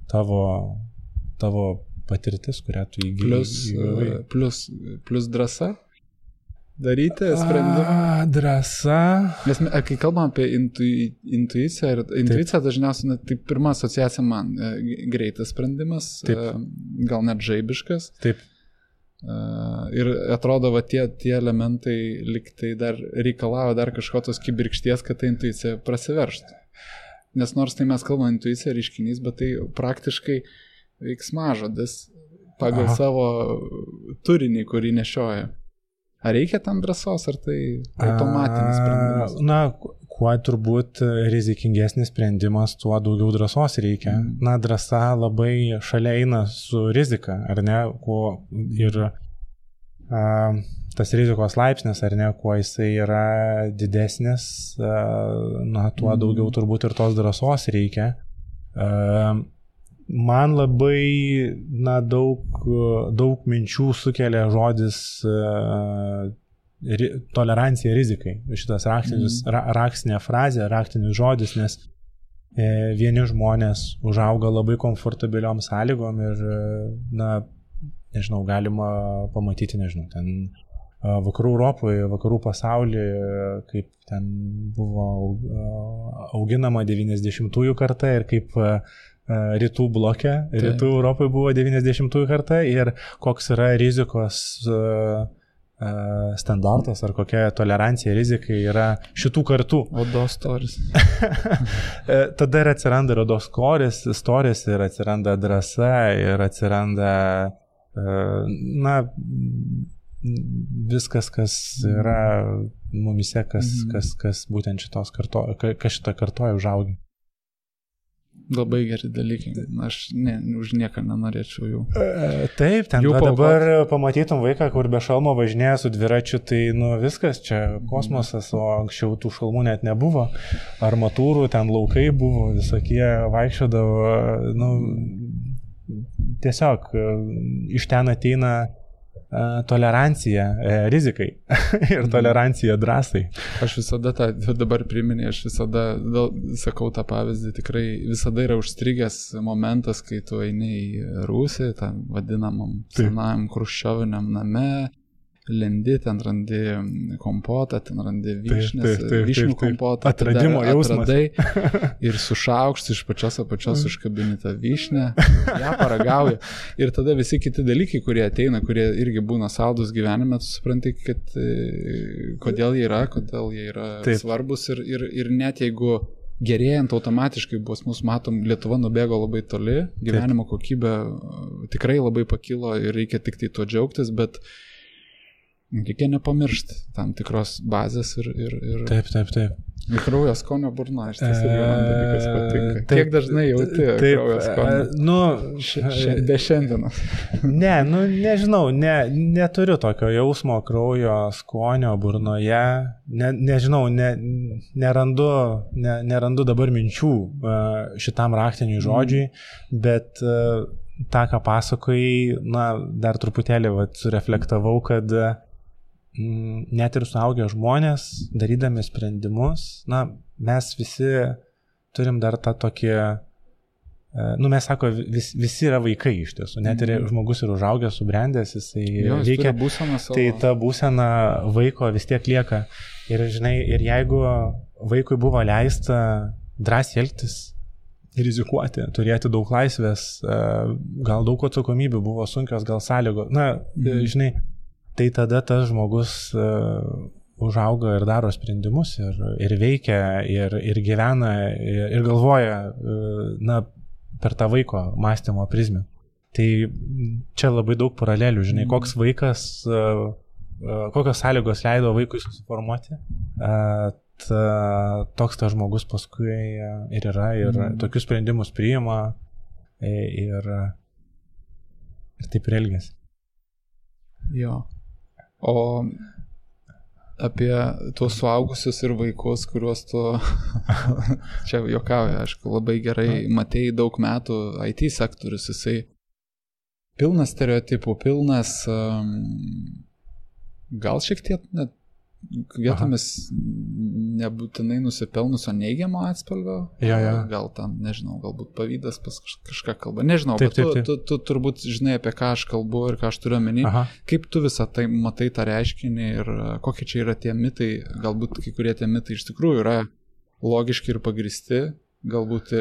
tavo patirtis, kurią tu įgyji. Plus drąsa daryti sprendimą. Drąsa. Nes kai kalbam apie intuiciją, intuicija dažniausiai, tai pirma asociacija man greitas sprendimas, gal net žaibiškas. Taip. Ir atrodo, tie elementai liktai dar reikalavo dar kažkokios kibirkšties, kad ta intuicija prasiveržtų. Nes nors tai mes kalbame intuicija reiškinys, bet tai praktiškai veiksmažodis pagal savo turinį, kurį nešioja. Ar reikia tam drąsos, ar tai automatinis sprendimas? Kuo turbūt rizikingesnis sprendimas, tuo daugiau drąsos reikia. Drąsa labai šalia eina su rizika, ar ne? Ir tas rizikos laipsnis, ar ne, kuo jisai yra didesnis, tuo daugiau turbūt ir tos drąsos reikia. Man labai daug minčių sukelia žodis tolerancija rizikai. Šitas raktinė frazė, raktinis žodis, nes vieni žmonės užauga labai komfortabiliom sąlygom ir, galima pamatyti, ten vakarų Europoje, vakarų pasaulyje, kaip ten buvo auginama 90-ųjų karta ir kaip rytų bloke, rytų Europoje buvo 90-ųjų karta ir koks yra rizikos standartas ar kokia tolerancija rizikai yra šitų kartų. Odos storis. Tada ir atsiranda odos storis ir atsiranda drąsa ir atsiranda viskas, kas yra mumise, kas būtent šitą kartoja užaugi. Labai geri dalykai. Aš už nieką nenorėčiau jų. Taip, ten dabar pamatytum vaiką, kur be šalmo važinėja su dviračiu, tai viskas, čia kosmosas, o anksčiau tų šalmų net nebuvo. Armatūrų, ten laukai buvo, visokie vaikščiodavo, tiesiog iš ten ateina tolerancija rizikai ir tolerancija drąsai. Aš visada dabar priminė, aš visada sakau tą pavyzdį, tikrai visada yra užstrigęs momentas, kai tu eini į rūsį, tam vadinamam senajam chruščioviniam name, lendi, ten randi kompotą, ten randi vyšnės, vyšnių kompotą, atradimo jausmas. Atradai ir su šaukštu iš pačios apačios užkabini tą vyšnę, ją paragauji. Ir tada visi kiti dalykai, kurie ateina, kurie irgi būna saldus gyvenime, tu supranti, kad kodėl jie yra svarbus ir net jeigu gerėjant automatiškai mus matom, Lietuva nubėgo labai toli, gyvenimo kokybė tikrai labai pakilo ir reikia tik tai tuo džiaugtis, bet reikia nepamiršti tam tikros bazės ir Taip. Kraujo skonio burna, iš tiesų man dalykas patinka. Kiek dažnai jauti kraujo skonio? Be šiandienos. Nežinau, neturiu tokio jausmo kraujo skonio burnoje. Nežinau, nerandu dabar minčių šitam raktiniui žodžiui, bet tą, ką pasakojai, dar truputėlį sureflektavau, kad net ir suaugę žmonės, darydami sprendimus, mes visi turim dar tą tokį, mes sako, visi yra vaikai iš tiesų, net ir žmogus yra užaugęs, subrendęs, jisai veikia, tai ta būsena vaiko vis tiek lieka. Ir žinai, ir jeigu vaikui buvo leista drąsiai elgtis, rizikuoti, turėti daug laisvės, gal daug atsakomybių, buvo sunkios, gal sąlygos, žinai, tai tada tas žmogus užauga ir daro sprendimus ir veikia ir gyvena ir galvoja per tą vaiko mąstymo prizmę. Tai čia labai daug paralelių, žinai, koks vaikas, kokios sąlygos leido vaikui susiformuoti, toks tas žmogus paskui ir yra ir tokius sprendimus priima ir taip ir elgiasi. Jo. O apie tuos suaugusius ir vaikus, kuriuos tu, čia juokauju, aišku, labai gerai matei daug metų IT sektorius, jisai pilnas stereotipų, pilnas, gal šiek tiek net vietomis nebūtinai nusipelnusio neigiamo atspalvio, gal tam, nežinau, galbūt pavydas pas kažką kalba, nežinau, bet tu turbūt žinai, apie ką aš kalbu ir ką aš turiu omeny, kaip tu visą tai matai tą reiškinį ir kokie čia yra tie mitai, galbūt kai kurie tie mitai iš tikrųjų yra logiški ir pagristi, galbūt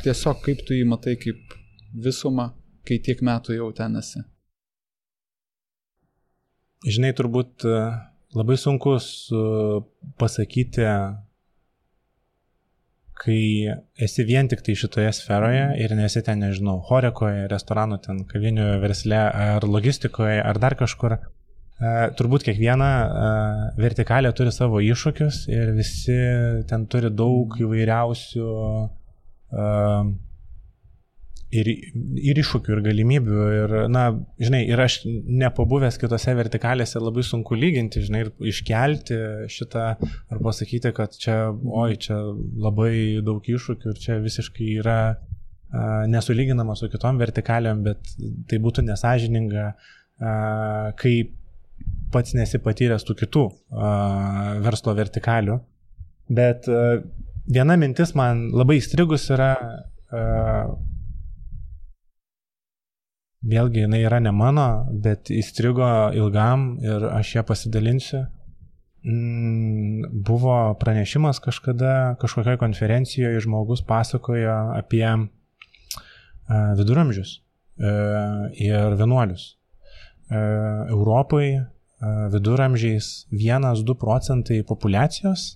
tiesiog kaip tu jį matai kaip visumą, kai tiek metų jau ten esi. Žinai, turbūt labai sunku pasakyti, kai esi vien tik tai šitoje sferoje ir nesi ten, nežinau, horekoje, restoranų, ten kavinių versle ar logistikoje ar dar kažkur. Turbūt kiekviena vertikalė turi savo iššūkius ir visi ten turi daug įvairiausių ir iššūkių, ir galimybių, ir, žinai, ir aš nepabuvęs kitose vertikalėse labai sunku lyginti, žinai, ir iškelti šitą, ar pasakyti, kad čia labai daug iššūkių ir čia visiškai yra nesulyginama su kitom vertikalėm, bet tai būtų nesąžininga, kai pats nesi patyręs tų kitų verslo vertikalių. Bet viena mintis man labai įstrigus yra, vėlgi, jinai yra ne mano, bet įstrigo ilgam ir aš ją pasidalinsiu. Buvo pranešimas kažkada, kažkokioje konferencijoje žmogus pasakojo apie viduramžius ir vienuolius. Europai viduramžiais 1-2% populiacijos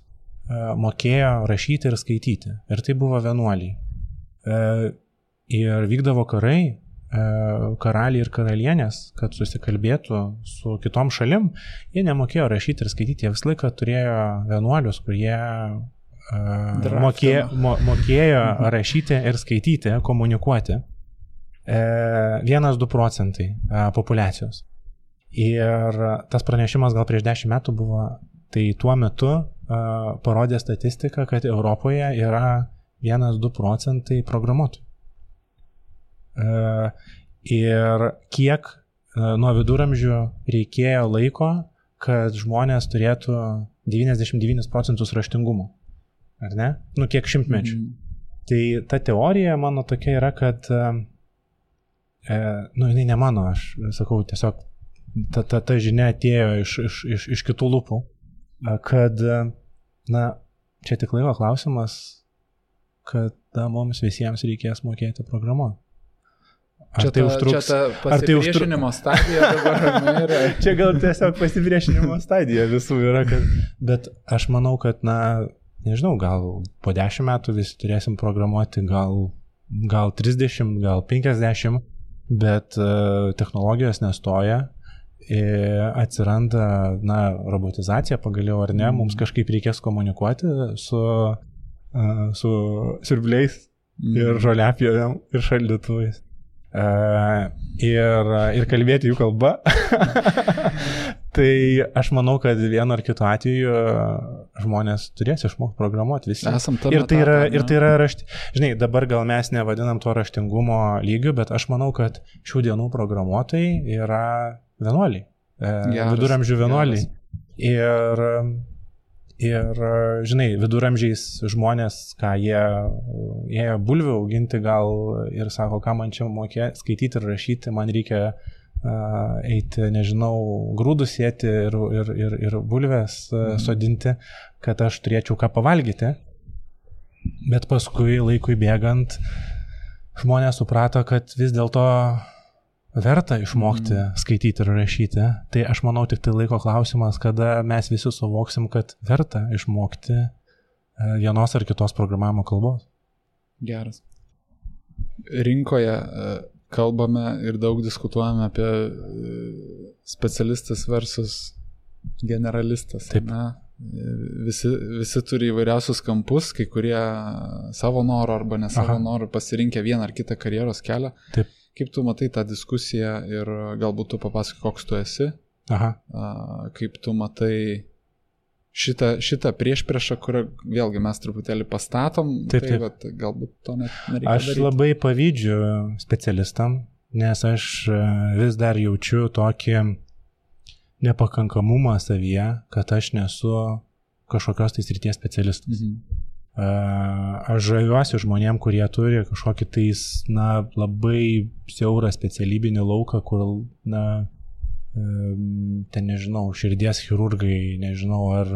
mokėjo rašyti ir skaityti. Ir tai buvo vienuoliai. Ir vykdavo karai, karaliai ir karalienės, kad susikalbėtų su kitom šalim, jie nemokėjo rašyti ir skaityti, jie visą laiką turėjo vienuolius, kurie mokėjo rašyti ir skaityti, komunikuoti 1-2 procentai populiacijos. Ir tas pranešimas gal prieš 10 metų buvo, tai tuo metu parodė statistiką, kad Europoje yra 1-2 procentai programuotojų. Ir kiek nuo viduramžių reikėjo laiko, kad žmonės turėtų 99 procentus raštingumo. Ar ne? Kiek šimtmečių. Tai ta teorija mano tokia yra, kad jinai ne mano, aš sakau, tiesiog ta žinia atėjo iš kitų lūpų, kad, čia tik laiko klausimas, kad mums visiems reikės mokėti programuoti. Čia tai užtruks? Čia ta pasipriešinimo stadija dabar yra. Čia gal tiesiog pasipriešinimo stadija visų yra, bet aš manau, kad, nežinau, gal po 10 metų visi turėsim programuoti, gal 30, gal 50, bet technologijos nestoja, atsiranda, robotizacija pagaliau ar ne, mums kažkaip reikės komunikuoti su siurbliais ir žoliapjovėm ir šaldytuvais. Ir kalbėti jų kalba. Tai aš manau, kad vienu ar kitu atveju žmonės turės išmokti programuoti visi. Ir tai yra žinai, dabar gal mes nevadinam to raštingumo lygiu, bet aš manau, kad šių dienų programuotojai yra vienuoliai, viduramžių vienuoliai. Ir, žinai, viduramžiais žmonės, jie ėjo bulvių auginti gal ir sako, ką man čia mokėti, skaityti ir rašyti, man reikia eiti, nežinau, grūdus sėti ir bulvės sodinti, kad aš turėčiau ką pavalgyti. Bet paskui laikui bėgant žmonės suprato, kad vis dėlto verta išmokti skaityti ir rašyti. Tai aš manau tik tai laiko klausimas, kada mes visi suvoksim, kad verta išmokti vienos ar kitos programavimo kalbos. Geras. Rinkoje kalbame ir daug diskutuojame apie specialistas versus generalistas. Taip. Visi turi įvairiausius kampus, kai kurie savo norų arba ne savo norų pasirinkę vieną ar kitą karjeros kelią. Taip. Kaip tu matai tą diskusiją ir galbūt tu papasakai, koks tu esi? Kaip tu matai šitą priešpriešą, kurią vėlgi mes truputėlį pastatom, bet galbūt to net nereikia daryti. Aš labai pavydžiu specialistam, nes aš vis dar jaučiu tokį nepakankamumą savyje, kad aš nesu kažkokios tai srities specialistas. Aš žaviuosi žmonėm, kurie turi kažkokį tais, labai siaurą specialybinį lauką, kur, ten nežinau, širdies chirurgai, nežinau, ar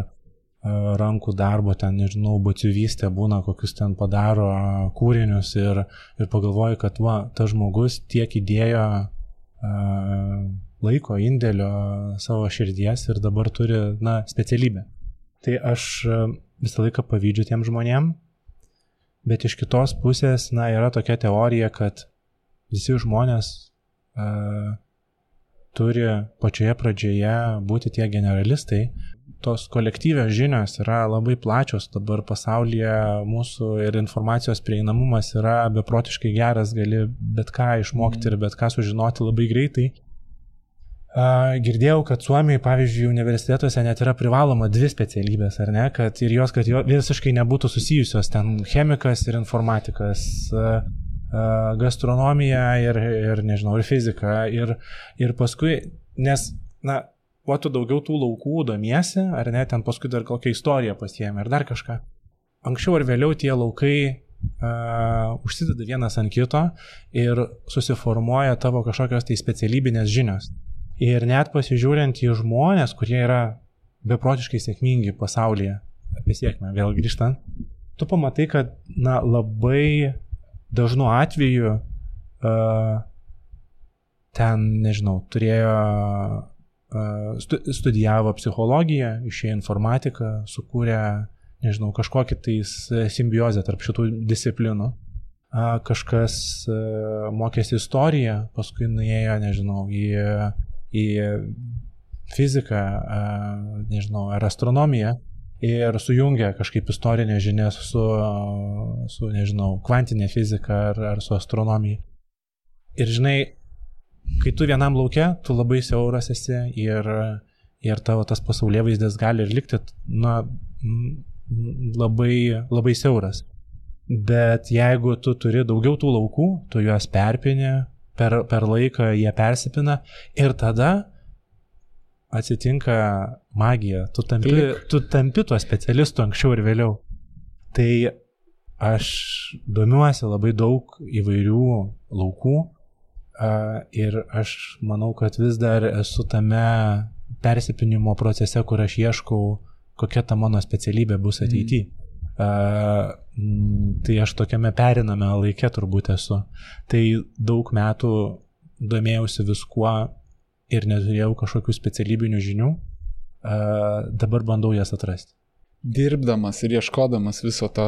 rankų darbo, ten nežinau, batsiuvystė būna, kokius ten padaro kūrinius ir pagalvoju, kad tas žmogus tiek įdėjo laiko, indėlio savo širdies ir dabar turi, specialybę. Tai aš visą laiką pavydžiu tiem žmonėm, bet iš kitos pusės, yra tokia teorija, kad visi žmonės turi pačioje pradžioje būti tie generalistai. Tos kolektyvios žinios yra labai plačios dabar pasaulyje, mūsų ir informacijos prieinamumas yra beprotiškai geras, gali bet ką išmokti ir bet ką sužinoti labai greitai. Girdėjau, kad Suomijoje, pavyzdžiui, universitetuose net yra privaloma 2 specialybės, ar ne, kad jos visiškai nebūtų susijusios, ten chemikas ir informatikas, gastronomija ir nežinau, ir fizika, ir paskui, nes, kuo tu daugiau tų laukų domiesi, ar ne, ten paskui dar kokią istoriją pasiėmė, ar dar kažką. Anksčiau ar vėliau tie laukai užsideda vienas ant kito ir susiformuoja tavo kažkokios tai specialybinės žinios. Ir net pasižiūrint į žmonės, kurie yra beprotiškai sėkmingi pasaulyje, apie sėkmę vėl grįžtant, tu pamatai, kad labai dažnu atveju ten, nežinau, turėjo, studijavo psichologiją, išėjo informatiką, sukūrė, nežinau, kažkokį tais simbiozę tarp šitų disciplinų. Kažkas mokėsi istoriją, paskui nuėjo, nežinau, į fiziką, nežinau, ar astronomiją ir sujungia kažkaip istorinės žinias su nežinau, kvantinė fizika ar su astronomija. Ir žinai, kai tu vienam lauke, tu labai siauras esi ir tavo tas pasaulėvaizdis gali ir likti labai, labai siauras. Bet jeigu tu turi daugiau tų laukų, tu juos perpini, per laiką jie persipina ir tada atsitinka magija. Tu tampi tuo specialistu anksčiau ir vėliau. Tai aš domiuosi labai daug įvairių laukų ir aš manau, kad vis dar esu tame persipinimo procese, kur aš ieškau, kokia ta mano specialybė bus ateityje. Tai aš tokiame periname laike turbūt esu. Tai daug metų domėjausi viskuo ir neturėjau kažkokių specialybinių žinių. Dabar bandau jas atrasti. Dirbdamas ir ieškodamas viso to,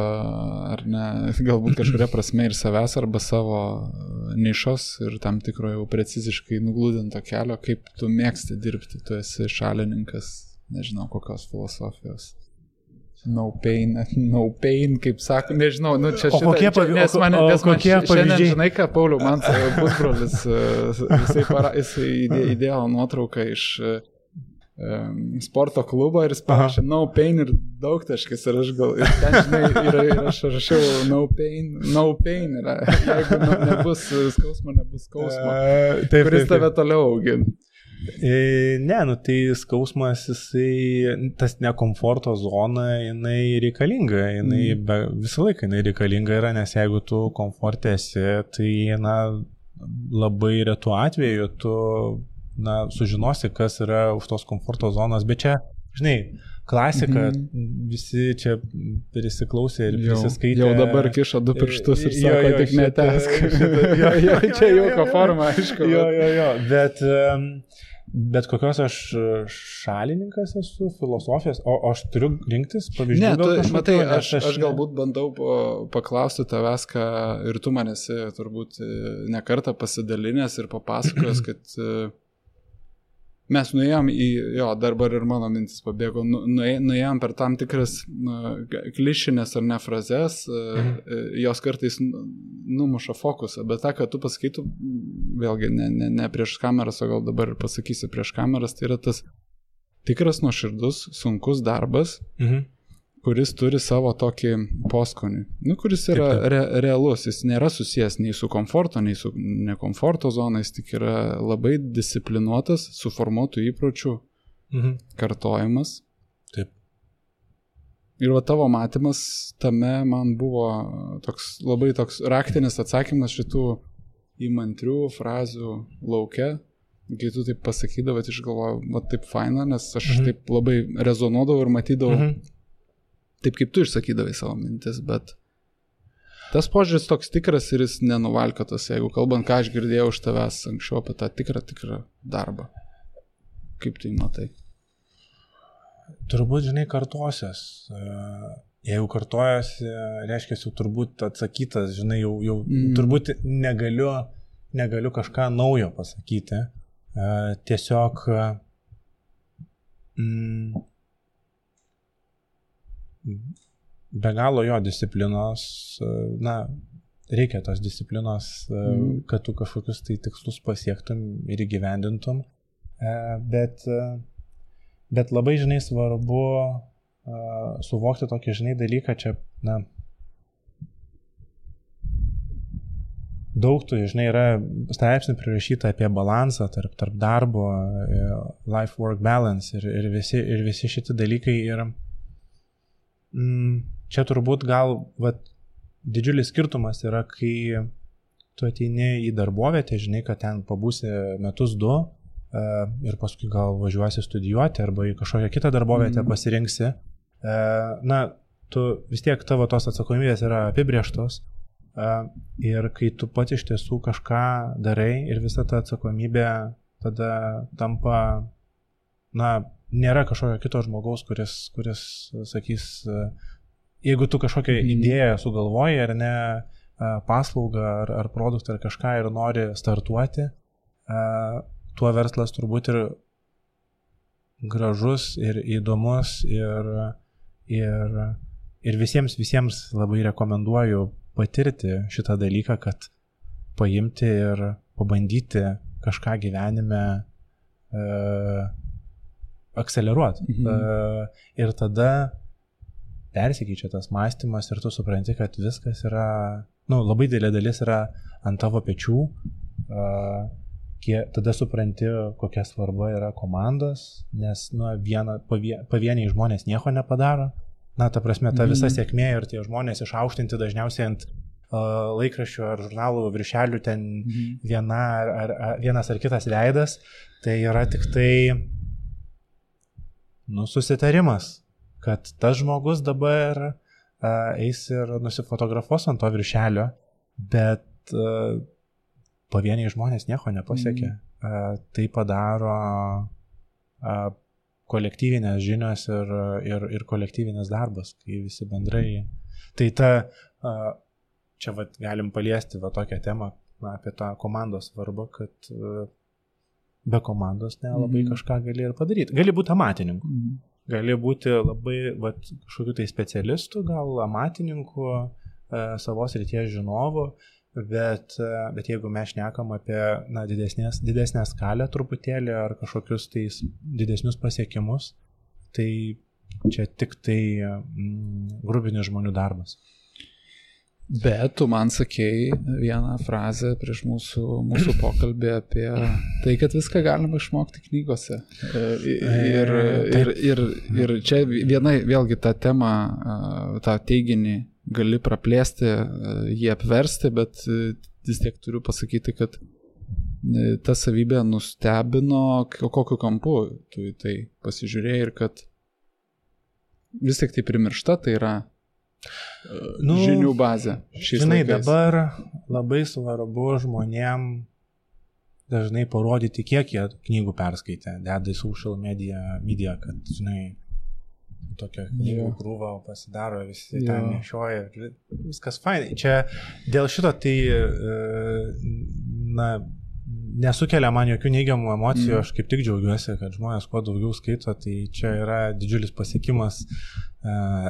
ar ne, galbūt kažkuria prasme ir savęs arba savo nišos ir tam tikro jau preciziškai nuglūdinto kelio, kaip tu mėgsti dirbti, tu esi šalininkas, nežinau, kokios filosofijos. No pain, kaip sako, nežinau, nu čia šitą, nes man šiandien, žinai ką, Pauliau, man pusbrolis, jisai įdėjo nuotrauką iš sporto klubo ir jis parašė no pain ir daugtaškis ir aš gal, ir ten, žinai, ir aš rašiau no pain, ir jeigu nebus skausmo, nebus skausmo, kuris tave toliau augina. Ne, nu tai skausmas, jisai, tas nekomforto zona, jinai reikalinga, visą laiką jinai reikalinga yra, nes jeigu tu komforte esi, tai labai retu atveju tu sužinosi, kas yra už tos komforto zonos, bet čia, žinai, klasika, visi čia prisiklausė ir prisiskaitė. Jau dabar kišo du pirštus ir sako, tik netesk. Čia jauko forma, aišku. Bet kokios aš šalininkas esu, filosofijos, o aš turiu rinktis pavyzdžių? Ne, matai, aš galbūt bandau paklausti tavęs, ką ir tu man esi turbūt nekartą pasidalinęs ir papasakojęs, kad mes nuėjom dabar ir mano mintis pabėgo, nuėjom per tam tikras klišinės ar ne frazes, jos kartais numuša fokusą, bet tą, ką tu pasakytų, vėlgi ne prieš kameras, o gal dabar pasakysi prieš kameras, tai yra tas tikras nuoširdus, sunkus darbas, kuris turi savo tokį poskonį, kuris yra realus, jis nėra susijęs nei su komforto, nei su nekomforto zonais, tik yra labai disciplinuotas, suformuotų įpročių kartojimas. Taip. Ir tavo matymas tame man buvo labai toks raktinis atsakymas šitų įmantrių frazių lauke, kai tu taip pasakydavai, aš galvojau, taip faina, nes aš taip labai rezonuodavau ir matydavau taip, kaip tu išsakydavai savo mintis, bet tas požiūris toks tikras ir jis nenuvalkiotas, jeigu kalbant, ką aš girdėjau iš tavęs anksčiau apie tą tikrą darbą. Kaip tai matai? Turbūt, žinai, kartosios. Jeigu kartojasi, reiškia, jau turbūt atsakytas, žinai, jau turbūt negaliu kažką naujo pasakyti. Tiesiog be galo jo disciplinos, reikia tos disciplinos, kad tu kažkokius tai tikslus pasiektum ir įgyvendintum, bet labai, žinai, svarbu suvokti tokį, žinai, dalyką, čia, daug tų, žinai, yra straipsnių prirašyta apie balansą tarp darbo, life-work balance ir visi šitie dalykai ir čia turbūt gal didžiulis skirtumas yra, kai tu ateini į darbovietę, žinai, kad ten pabūsi metus 2 ir paskui gal važiuosi studijuoti arba į kažkokią kitą darbovietę pasirinksi. Tu vis tiek tavo tos atsakomybės yra apibrėžtos ir kai tu pats iš tiesų kažką darai ir visa ta atsakomybė tada tampa, nėra kažkokio kito žmogaus, kuris sakys, jeigu tu kažkokią idėją sugalvoji ar ne, paslaugą ar produktą ar kažką ir nori startuoti, tuo verslas turbūt ir gražus ir įdomus Ir visiems labai rekomenduoju patirti šitą dalyką, kad paimti ir pabandyti kažką gyvenime akceleruoti. Ir tada persikeičia tas mąstymas ir tu supranti, kad viskas yra, labai didelė dalis yra ant tavo pečių. Tada supranti, kokia svarba yra komandos, nes pavieniai žmonės nieko nepadaro. Ta prasme, ta visa sėkmė ir tie žmonės išaukštinti dažniausiai ant laikraščių ar žurnalų viršelių ten vienas ar kitas veidas, tai yra tik tai susitarimas, kad tas žmogus dabar eis ir nusifotografuos ant to viršelio, bet pavieniai žmonės nieko nepasiekia. Tai padaro kolektyvinės žinios ir kolektyvinės darbas, kai visi bendrai. Tai čia galim paliesti tokią temą apie tą komandos svarbą, kad be komandos nelabai kažką gali ir padaryti. Gali būti amatininku, gali būti labai kažkokiu tai specialistu, gal amatininku, savos ryties žinovu, bet jeigu mes šnekam apie didesnę skalę truputėlį ar kažkokius tai didesnius pasiekimus, tai čia tik tai grubinis žmonių darbas. Bet tu man sakei vieną frazę prieš mūsų pokalbį apie tai, kad viską galima išmokti knygose. Ir čia vėlgi tą temą, tą teiginį gali praplėsti, jį apversti, bet vis tiek turiu pasakyti, kad ta savybė nustebino, kokiu kampu tu į tai pasižiūrėjai ir kad vis tik tai primiršta, tai yra žinių bazė. Žinai, dabar labai svarbu žmonėm dažnai parodyti, kiek jie knygų perskaitė, deda į social media, kad, žinai, tokia knygų krūva pasidaro, visi ten nešioja, viskas fainai. Čia dėl šito tai nesukelia man jokių neigiamų emocijų, aš kaip tik džiaugiuosi, kad žmonės kuo daugiau skaito, tai čia yra didžiulis pasiekimas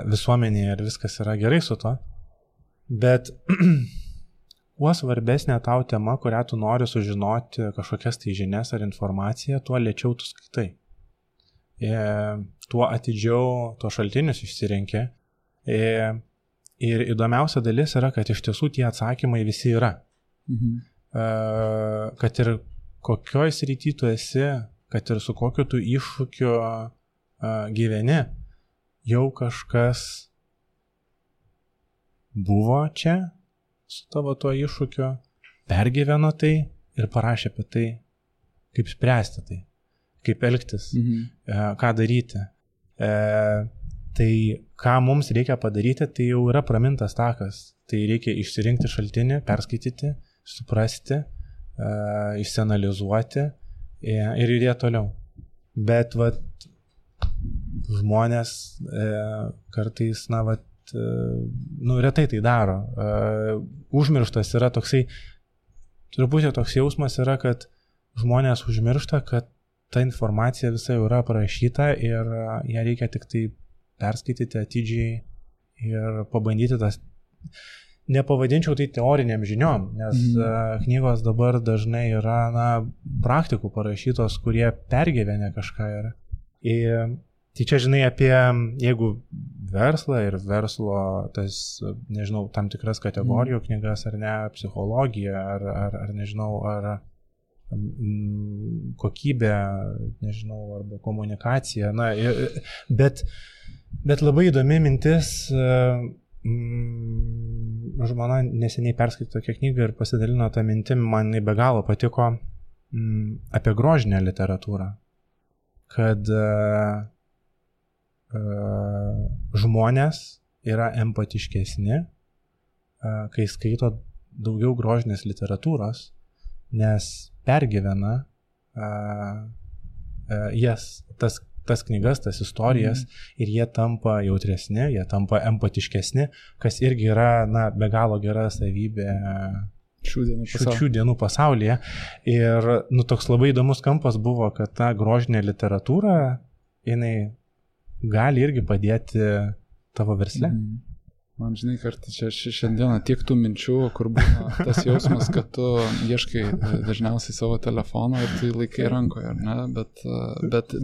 visuomenėje ir viskas yra gerai su to. Bet kuo svarbesnė tau tema, kurią tu nori sužinoti, kažkokias tai žinias ar informaciją, tuo lėčiau tu skaitai. Tuo atidžiau tuo šaltinius išsirenki. Ir įdomiausia dalis yra, kad iš tiesų tie atsakymai visi yra. Kad ir kokioj srity tu esi, kad ir su kokiu tu iššūkiu gyveni, jau kažkas buvo čia su tavo tuo iššūkiu, pergyveno tai ir parašė apie tai, kaip spręsti tai, kaip elgtis, ką daryti. Tai ką mums reikia padaryti, tai jau yra pramintas takas. Tai reikia išsirinkti šaltinį, perskaityti, suprasti, išsianalizuoti ir judėti toliau. Bet žmonės kartais, retai tai daro. Užmirštas yra toksai, truputį toks jausmas yra, kad žmonės užmiršta, kad ta informacija visa jau yra aprašyta ir ją reikia tik tai perskaityti atidžiai ir pabandyti tas. Nepavadinčiau tai teoriniam žiniom, nes knygos dabar dažnai yra praktikų parašytos, kurie pergyvenę kažką yra. Tai čia žinai apie, jeigu verslą ir verslo, tas, nežinau, tam tikras kategorijų knygas ar ne, psichologiją ar nežinau, ar kokybę, nežinau, arba komunikaciją. Bet labai įdomi mintis. Žmona neseniai perskaitė tokią knygą ir pasidalino tą mintim, man be galo patiko, apie grožinę literatūrą, kad žmonės yra empatiškesni, kai skaito daugiau grožinės literatūros, nes pergyvena jas, tas knygas, tas istorijas ir jie tampa jautresni, jie tampa empatiškesni, kas irgi yra be galo gera savybė šių dienų pasaulyje. Ir toks labai įdomus kampas buvo, kad ta grožinė literatūra, jinai gali irgi padėti tavo versle? Man žinai, kartą čia šiandieną tiek tų minčių, kur būna tas jausmas, kad tu ieškai dažniausiai savo telefono ir tu laikai rankoje, ar ne,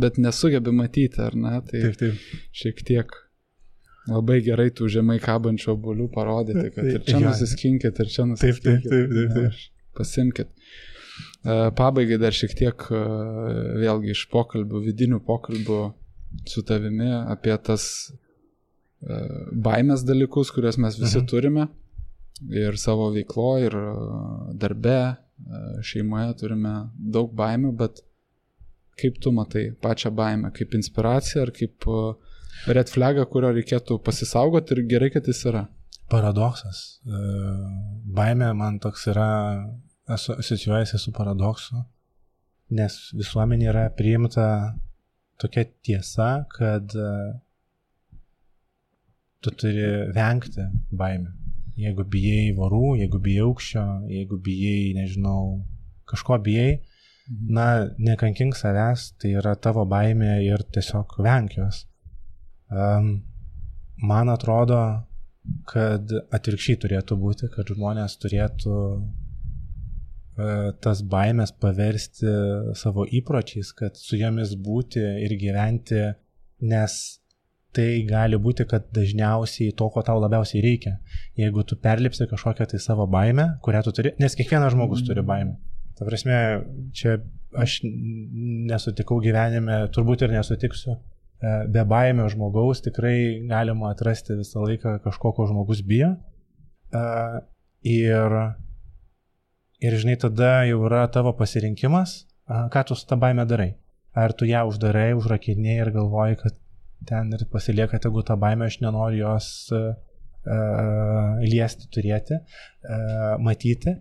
bet nesugebi matyti, ar ne, tai taip. Šiek tiek labai gerai tų žemai kabančių obuolių parodyti, kad ir čia nusiskinkit, ir čia nusiskinkit. Taip. Pasimkit. Pabaigai dar šiek tiek vėlgi iš pokalbių, vidinių pokalbių su tavimi apie tas baimės dalykus, kurias mes visi turime ir savo veikloje, ir darbe, šeimoje turime daug baimių, bet kaip tu matai pačią baimę, kaip inspiraciją ar kaip red flagą, kurio reikėtų pasisaugoti ir gerai, kad jis yra? Paradoksas. Baimė man toks yra, asocijuojasi su paradoksu, nes visuomenė yra priimta tokia tiesa, kad tu turi vengti baimių. Jeigu bijai vorų, jeigu bijai aukščio, jeigu bijai, nežinau, kažko bijai, nekankink savęs, tai yra tavo baimė ir tiesiog venk jos. Man atrodo, kad atvirkščiai turėtų būti, kad žmonės turėtų tas baimės paversti savo įpročiais, kad su jomis būti ir gyventi, nes tai gali būti, kad dažniausiai to, ko tau labiausiai reikia. Jeigu tu perlipsi kažkokią tai savo baimę, kurią tu turi, nes kiekvienas žmogus turi baimę. Ta prasme, čia aš nesutikau gyvenime, turbūt ir nesutiksiu, be baimio žmogaus tikrai galima atrasti visą laiką kažko, ko žmogus bijo. Ir žinai, tada jau yra tavo pasirinkimas, ką tu su ta baime darai. Ar tu ją uždarai, užrakinėjai ir galvoji, kad ten ir pasilieka tegu tą baimę, aš nenoriu jos liesti, turėti, matyti.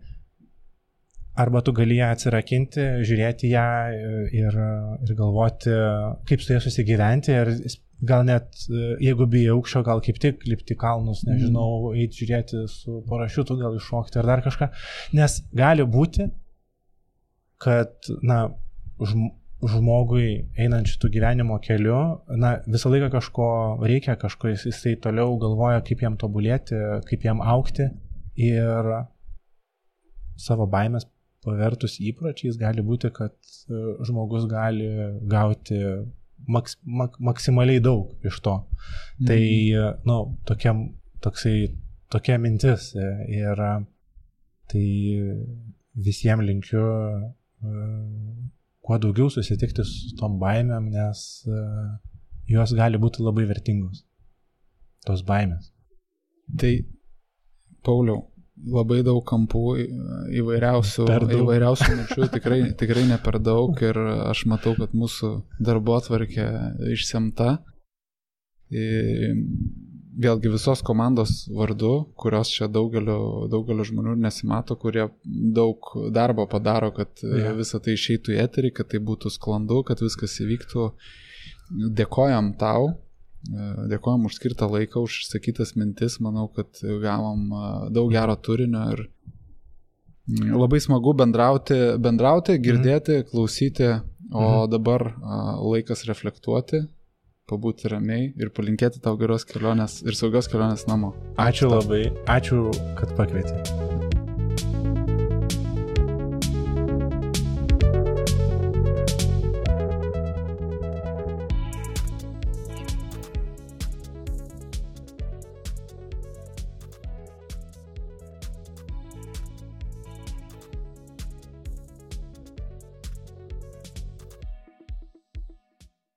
Arba tu gali ją atsirakinti, žiūrėti ją ir galvoti, kaip su ją susigyventi. Ir gal net, jeigu bijai aukščio, gal kaip tik lipti kalnus, nežinau, eiti žiūrėti su parašiutu, gal iššokti ar dar kažką. Nes gali būti, kad, žmogui einant šitų gyvenimo keliu, visą laiką kažko reikia, kažko jisai toliau galvoja, kaip jam tobulėti, kaip jam augti ir savo baimės pavertus įpročiais gali būti, kad žmogus gali gauti maksimaliai daug iš to. Tai, tokia mintis ir tai visiems linkiu kuo daugiau susitikti su tom baimėm, nes jos gali būti labai vertingos, tos baimės. Tai, Pauliau, labai daug kampų, įvairiausių minčių, tikrai ne per daug ir aš matau, kad mūsų darbotvarkė išsemta. Vėlgi visos komandos vardu, kurios čia daugelio žmonių nesimato, kurie daug darbo padaro, kad visą tai išeitų į eterį, kad tai būtų sklandu, kad viskas įvyktų. Dėkojam tau, dėkojam už skirtą laiką, už išsakytas mintis, manau, kad gavom daug gero turinio ir labai smagu bendrauti, girdėti, klausyti, o dabar laikas reflektuoti, pabūti ramiai ir palinkėti tau geros kelionės ir saugios kelionės namo. Ačiū labai, ačiū, kad pakvietei.